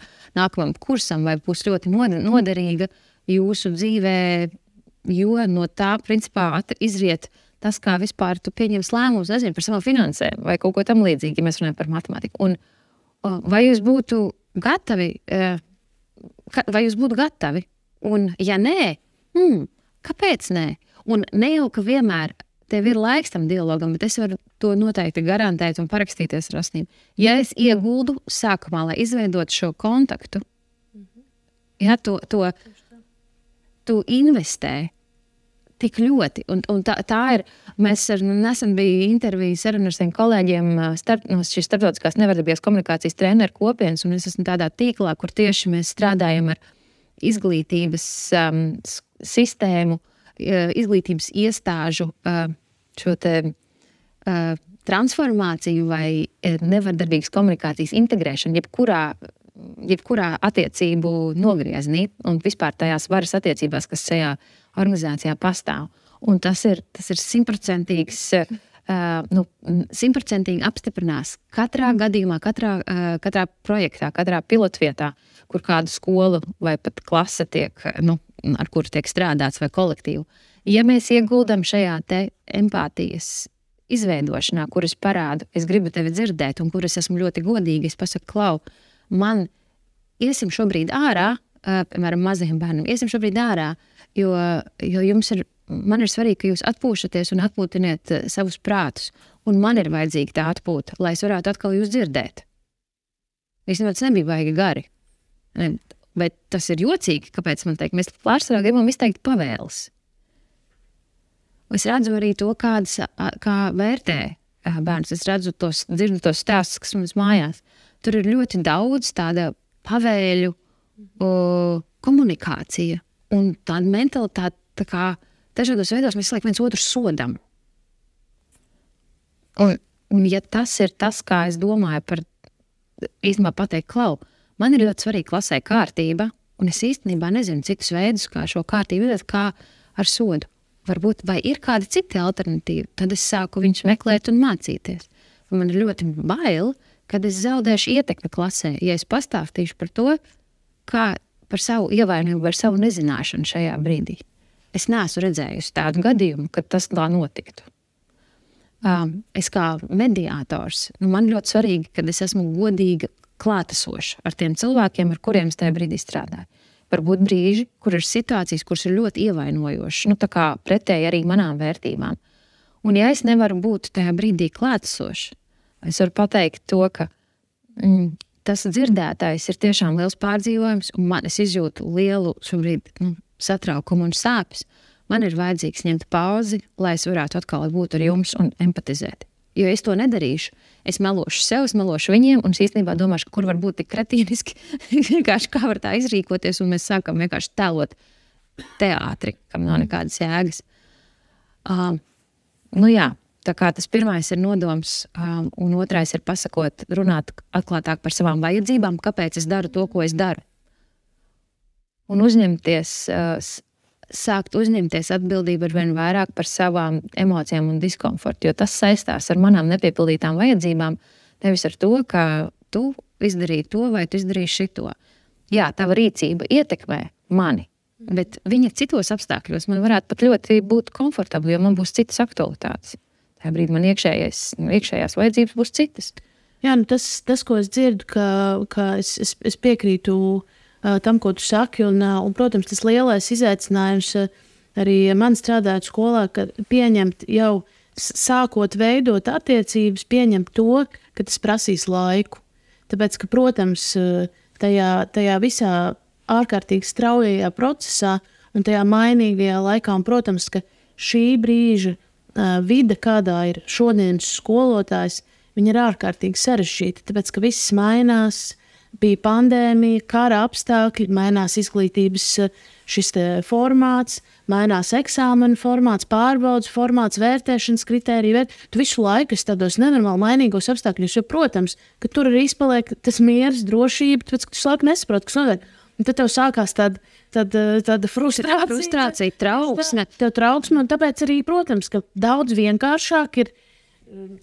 kursam, vai būs ļoti noderīga jūsu dzīvē, jo no tā, principā, izriet tas, kā vispār tu pieņems lēmumus, par savām finansēm vai kaut ko tam līdzīgi, ja mēs runājam par matemātiku. Un vai jūs būtu gatavi, un ja nē, kāpēc nē? Un ne jau, ka vienmēr tev ir laiks tam dialogam, bet es varu to noteikti garantēt un parakstīties ar asnīm. Ja es ieguldu sākumā, lai izveidot šo kontaktu, ja tu investē tik ļoti. Un tā ir, mēs nesen bija interviju saruna ar saviem kolēģiem no šīs starptautiskās nevardarbības komunikācijas treneru kopienas, un es esmu tādā tīklā, kur tieši mēs strādājam ar izglītības sistēmu, izglītības iestāžu šo te transformāciju vai nevardarbīgas komunikācijas integrēšanu, jebkurā attiecību nogrieznī un vispār tajās varas attiecībās, kas šajā organizācijā pastāv. Un tas ir 100%, 100% apstiprinās katrā gadījumā, katrā projektā, katrā pilotvietā, kur kādu skolu vai pat klase tiek, ar kuru tiek strādāts vai kolektīvu. Ja mēs ieguldam šajā te empātijas izveidošanā, kur es parādu, es gribu tevi dzirdēt un kur es esmu ļoti godīgi, es pasaku, Klau, man iesim šobrīd ārā, piemēram, mazajiem bērniem, iesim šobrīd ārā, jo man ir svarīgi, ka jūs atpūšaties un atpūtiniet savus prātus, un man ir vajadzīga tā atpūta, lai es varētu atkal jūs dzirdēt. Īstenībā tas nebija baigi gari, bet tas ir jocīgi, kāpēc man teikt, mēs pārsvarā gribam izteikt pavēles. Es redzu arī to, kā vērtē bērns, es dzirdu tos stāstus, kas mums mājās. Tur ir ļoti daudz tāda pavēļu komunikācija un tāda mentalitāte, tā kā dažādos veidos mēs viens otru sodam. Un ja tas ir tas, kā es domāju par īstenībā pateikt, Klau, man ir ļoti svarīga klasē kārtība, un es īstenībā nezinu citus veidus, kā šo kārtību vedot, kā ar sodu. Varbūt, vai ir kādi citi alternatīvi, tad es sāku viņus meklēt un mācīties. Un man ir ļoti bail, kad es zaudēšu ietekmi klasē, ja es pastāstīšu par to, kā par savu ievainojumu vai savu nezināšanu šajā brīdī. Es neesmu redzējusi tādu gadījumu, kad tas tā notiktu. Es kā mediātors, man ļoti svarīgi, kad es esmu godīga klātesoša ar tiem cilvēkiem, ar kuriem es tajā brīdī strādāju. Varbūt brīži, kur ir situācijas, kuras ir ļoti ievainojošas, tā kā pretēji arī manām vērtībām. Un ja es nevaru būt tajā brīdī klātesoša, es varu pateikt to, ka tas dzirdētājs ir tiešām liels pārdzīvojums, un es izjūtu lielu šobrīd satraukumu un sāpes. Man ir vajadzīgs ņemt pauzi, lai es varētu atkal būt ar jums un empatizēt. Jo es to nedarīšu, es melošu sev, es melošu viņiem, un es īstenībā domāšu, kur var būt tik kretīniski, vienkārši kā var tā izrīkoties, un mēs sākam vienkārši tēlot teātri, kam nav nekādas jēgas. Tā kā tas pirmais ir nodoms, un otrais ir pasakot, runāt atklātāk par savām vajadzībām, kāpēc es daru to, ko es daru. Un sākt uzņemties atbildību ar vien vairāk par savām emocijām un diskomfortu, jo tas saistās ar manām nepiepildītām vajadzībām, nevis ar to, ka tu izdarīji to vai tu izdarīji šito. Jā, tava rīcība ietekmē mani, bet viņa citos apstākļos man varētu pat ļoti būt komfortabli, jo man būs citas aktualitātes. Tajā brīdī man iekšējās vajadzības būs citas. Jā, tas ko es dzirdu, ka es piekrītu tam, ko tu saki, un, protams, tas lielais izaicinājums arī man strādājot skolā, ka pieņemt jau sākot veidot attiecības, pieņemt to, ka tas prasīs laiku. Tāpēc, ka, protams, tajā visā ārkārtīgi straujajā procesā un tajā mainīgajā laikā, un, protams, ka šī brīža vide, kādā ir šodienas skolotājs, viņa ir ārkārtīgi sarežģīta, tāpēc, ka viss mainās, bija pandēmija, kara apstākļi, mainās izglītības šis formāts, mainās eksāmenu formāts, pārbaudas formāts, vērtēšanas kritērija. Tu visu laiku esi tādos nenormāli mainīgos apstākļos, jo, protams, ka tur arī izpaliek tas miers, drošība, tāpēc, ka tu laiku nesaproti, kas notiek. Un tad tev sākās tāda frustrācija, trauksme. Tev trauksme, un tāpēc arī, protams, ka daudz vienkāršāk ir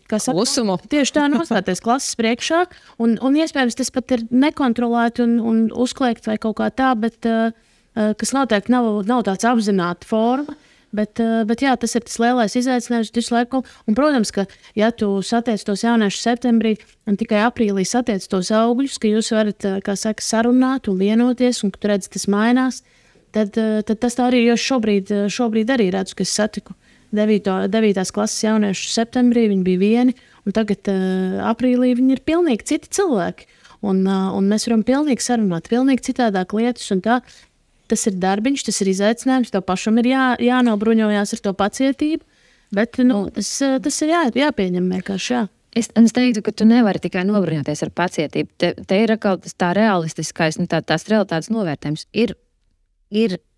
klusumu. Tieši tā nostāties klases priekšā, un iespējams tas pat ir nekontrolēti un uzkliegt vai kaut kā tā, bet kas noteikti nav tāds apzināta forma. Bet jā, tas ir tas lielais izaicinājums visu laiku. Un, protams, ka ja tu satiec tos jauniešus septembrī un tikai aprīlī satiec tos augļus, ka jūs varat, kā saka, sarunāt un vienoties, un ka tu redzi, tas mainās, tad tas tā arī, jo šobrīd arī redzu, ka es satiku 9. klases jauniešus septembrī, viņi bija vieni, un tagad aprīlī viņi ir pilnīgi citi cilvēki. Un mēs varam pilnīgi sarunāt, pilnīgi citādāk lietas, un tā. Tas ir darbiņš, tas ir izaicinājums, tev pašam ir jānobruņojās ar to pacietību, bet tas ir jāpieņem vienkārši, jā. Es teiktu, ka tu nevari tikai nobruņoties ar pacietību. Te ir atkal tā realistiskais, tās realitātes novērtējums. Ir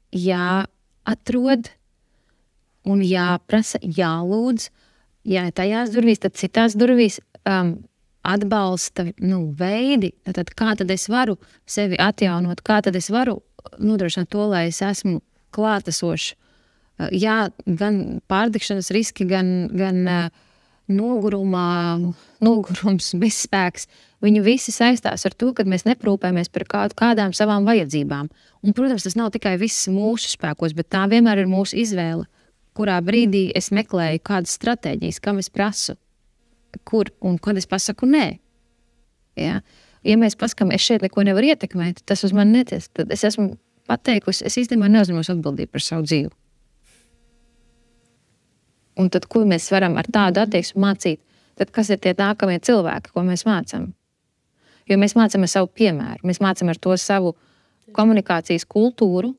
jāatrod un jāprasa, jālūdz, ja tajās durvīs, tad citās durvīs atbalsta veidi, tad kā tad es varu sevi atjaunot, kā tad es varu nodrošināt to, lai es esmu klātesošs. Jā, gan pārdegšanas riski, gan nogurums, bezspēks. Viņi visi saistās ar to, ka mēs neprūpējamies par kādām savām vajadzībām. Un, protams, tas nav tikai viss mūsu spēkos, bet tā vienmēr ir mūsu izvēle, kurā brīdī es meklēju kādas stratēģijas, kam es prasu, kur un kad es pasaku nē. Ja? Ja mēs paskam, es šeit neko nevaru ietekmēt, tas uz mani neties, tad es esmu pateikusi, es īstenībā neuzņemos atbildību par savu dzīvi. Un tad, ko mēs varam ar tādu attieksmi mācīt, tad kas ir tie nākamie cilvēki, ko mēs mācam? Jo mēs mācam ar savu piemēru, mēs mācam ar to savu komunikācijas kultūru,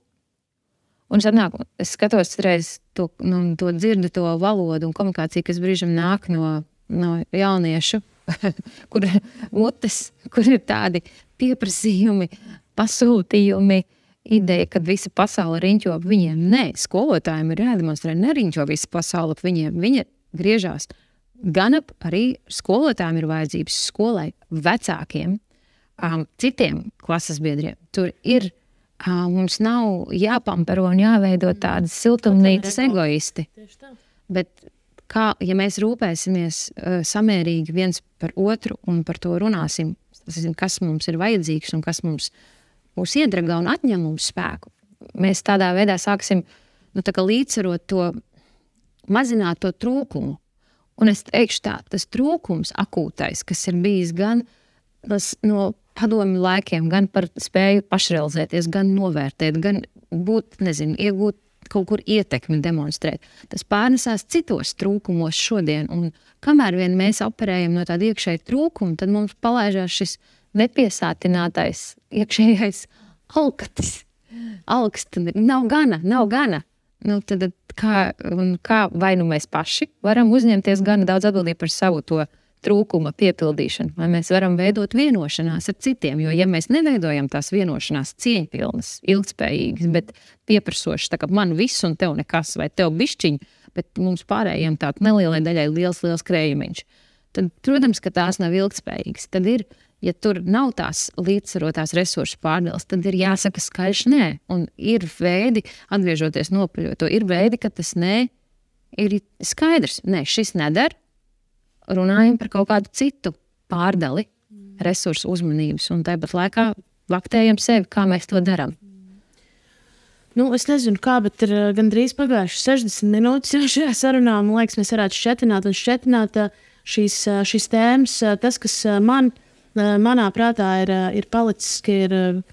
un es skatos reiz to dzirdu, to valodu un komunikāciju, kas brīžam nāk no jauniešu, kur ir tādi pieprasījumi, pasūtījumi, ideja, kad visa pasaule riņķo ap viņiem. Nē, skolotājiem ir jādemonstrē, neriņķo visa pasaule ap viņiem. Viņa griežās gan ap arī skolotājiem ir vajadzības skolai, vecākiem, citiem klases biedriem. Tur ir, mums nav jāpampero un jāveido tādas siltumnīcas egoisti. Bet ja mēs rūpēsimies samērīgi viens par otru un par to runāsim, kas mums ir vajadzīgs un kas mūs iedragā un atņem mums spēku, mēs tādā veidā sāksim līdzsvarot to, mazināt to trūkumu. Un es teikšu tā, tas trūkums akūtais, kas ir bijis gan no padomju laikiem, gan par spēju pašrealizēties, gan novērtēt, gan būt, iegūt kaut kur ietekmi demonstrēt. Tas pārnesās citos trūkumos šodien, un kamēr vien mēs operējam no tāda iekšēja trūkuma, tad mums palaižās šis nepiesātinātais iekšējais alkatis. Alkst, nav gana. Tad kā vai mēs paši varam uzņemties gana daudz atbildību par savu to trūkuma piepildīšanu, vai mēs varam veidot vienošanās ar citiem, jo ja mēs neveidojam tās vienošanās cieņpilnas, ilgspējīgas, bet pieprasošas, tā kā man viss un tev nekas, vai tev bišķiņ, bet mums pārējiem tāda nelielai daļai liels krējumiņš, tad, protams, ka tās nav ilgspējīgas. Tad ir, ja tur nav tās līdzsvarotās resursu pārdales, tad ir jāsaka skaļš nē, un ir veidi, atgriežoties nopaļot to, ir veidi, ka tas nē ir skaidrs. Nē, šis nedara. Runājam par kaut kādu citu pārdali resursu uzmanības un tāpat laikā laktējam sevi, kā mēs to darām. Es nezinu kā, bet ir gandrīz pagājuši 60 minūtes šajā sarunā. Man liekas, mēs varētu šķetināt šīs tēmas. Tas, kas manā prātā ir palicis, ka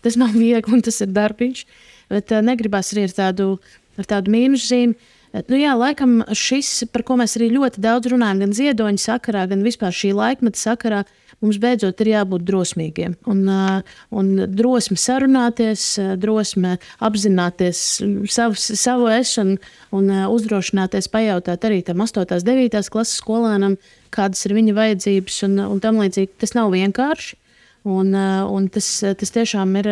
tas nav viegli un tas ir darbiņš, bet negribas arī ar tādu mīnusu zīmi. Laikam šis, par ko mēs arī ļoti daudz runājam, gan ziedoņa sakarā, gan vispār šī laikmeta sakarā, mums beidzot ir jābūt drosmīgiem. Un drosme sarunāties, drosme apzināties savu ešanu un uzdrošināties pajautāt arī tam 8. 9. klases skolēnam, kādas ir viņa vajadzības un tam līdzīgi. Tas nav vienkārši, un tas tiešām ir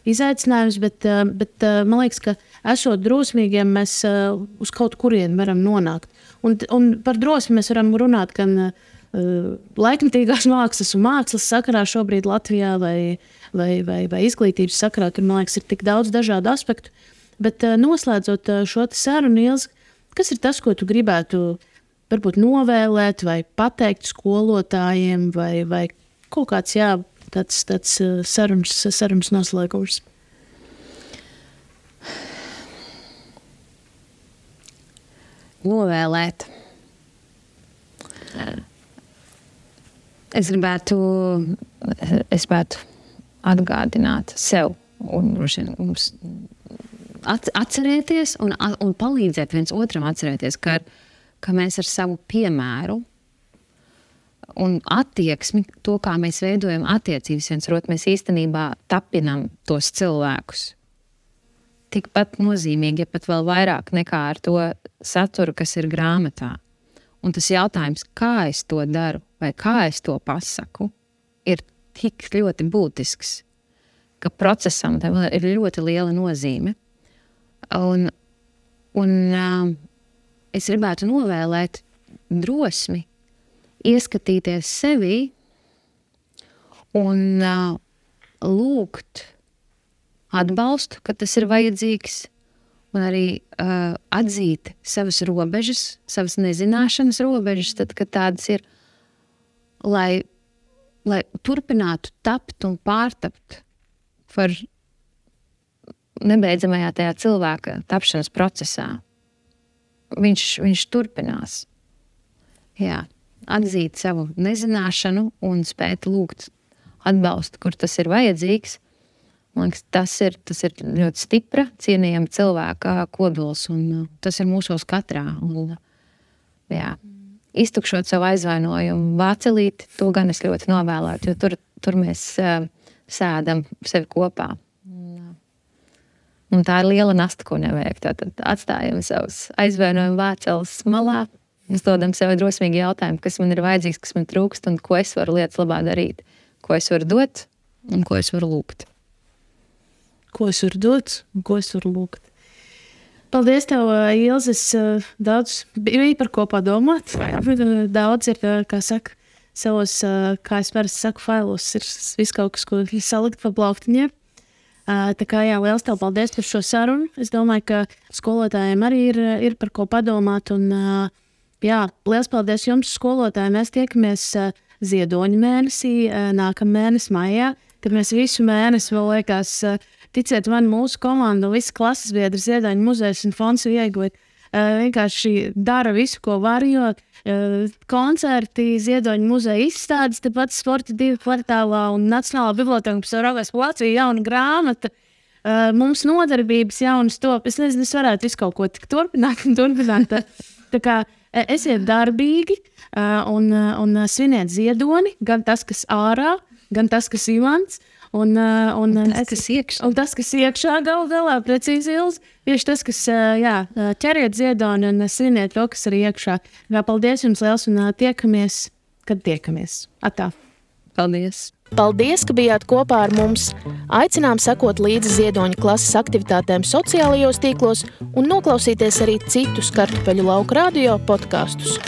izaicinājums, bet man liekas, ka esot drosmīgiem, mēs uz kaut kurienu varam nonākt. Un par drosmi mēs varam runāt gan laikmetīgās mākslas un mākslas sakarā šobrīd Latvijā vai izglītības sakarā. Tur, man liekas, ir tik daudz dažādu aspektu. Bet noslēdzot šo sarunu, Ilze, kas ir tas, ko tu gribētu varbūt novēlēt vai pateikt skolotājiem vai kaut kāds, tāds sarunas noslēgums? Novēlēt. Es gribētu atgādināt sev un mums atcerēties un palīdzēt viens otram atcerēties, ka mēs ar savu piemēru un attieksmi, to, kā mēs veidojam attiecības viens ar otru, mēs īstenībā tapinam tos cilvēkus. Tikpat nozīmīgi, ja pat vēl vairāk nekā ar to saturu, kas ir grāmatā. Un tas jautājums, kā es to daru vai kā es to pasaku, ir tik ļoti būtisks, ka procesam tam ir ļoti liela nozīme. Un es gribētu novēlēt drosmi ieskatīties sevī un lūgt atbalstu, kad tas ir vajadzīgs, un arī atzīt savas robežas, savas nezināšanas robežas, tad, kad tādas ir, lai turpinātu tapt un pārtapt par nebeidzamajā tajā cilvēka tapšanas procesā. Viņš turpinās. Jā, atzīt savu nezināšanu un spēt lūgt atbalstu, kur tas ir vajadzīgs. Man liekas, tas ir ļoti stipra, cienījama cilvēka kodols, un tas ir mūsos katrā. Un, iztukšot savu aizvainojumu vācelīti, to gan es ļoti novēlētu, jo tur mēs sēdam sevi kopā. Un tā ir liela nasta, ko nevajag. Tātad atstājam savus aizvainojumu vāceles malā, uzdodam sev drosmīgi jautājumu, kas man ir vajadzīgs, kas man trūkst, un ko es varu lietas labā darīt, ko es varu dot un ko es varu lūgt. Ko es varu dot un ko es varu lūgt. Paldies tev, Ilze. Daudz bija par ko padomāt. Daudz ir, kā saka, savos, kā es parasti saku, failos ir viss kaut kas, ko salikt pa plauktiņiem. Tā kā liels tev paldies par šo sarunu. Es domāju, ka skolotājiem arī ir par ko padomāt. Un, liels paldies jums, skolotāji. Mēs tiekamies Ziedoņa mēnesī, nākamā mēnesī maijā, kad mēs visu mēnesi vēl liekas, ticiet man, mūsu komanda un visi klases biedri Ziedoņa muzejs un fonds ieguvuši vienkārši dara visu, ko var, jo koncerti, Ziedoņa muzeja izstādes, tepat Sporta 2 kvartālā un Nacionālā biblioteka, kas jau raugās pa Latviju, jauna grāmata. Mums nodarbības jaunas top. Es nezinu, es varētu visu kaut ko turpināt. Tā kā esiet darbīgi un sviniet Ziedoni, gan tas, kas ārā, gan tas, kas imants. Un tas, kas iekšā galā, precīzi Ilze, tieši tas, kas ķeriet Ziedoni un sviniet to, kas arī iekšā. Paldies jums liels un tiekamies, kad tiekamies. Atā. Paldies! Paldies, ka bijāt kopā ar mums! Aicinām sekot līdzi Ziedoņa klases aktivitātēm sociālajos tīklos un noklausīties arī citus Kartupeļu lauka radio podkastus.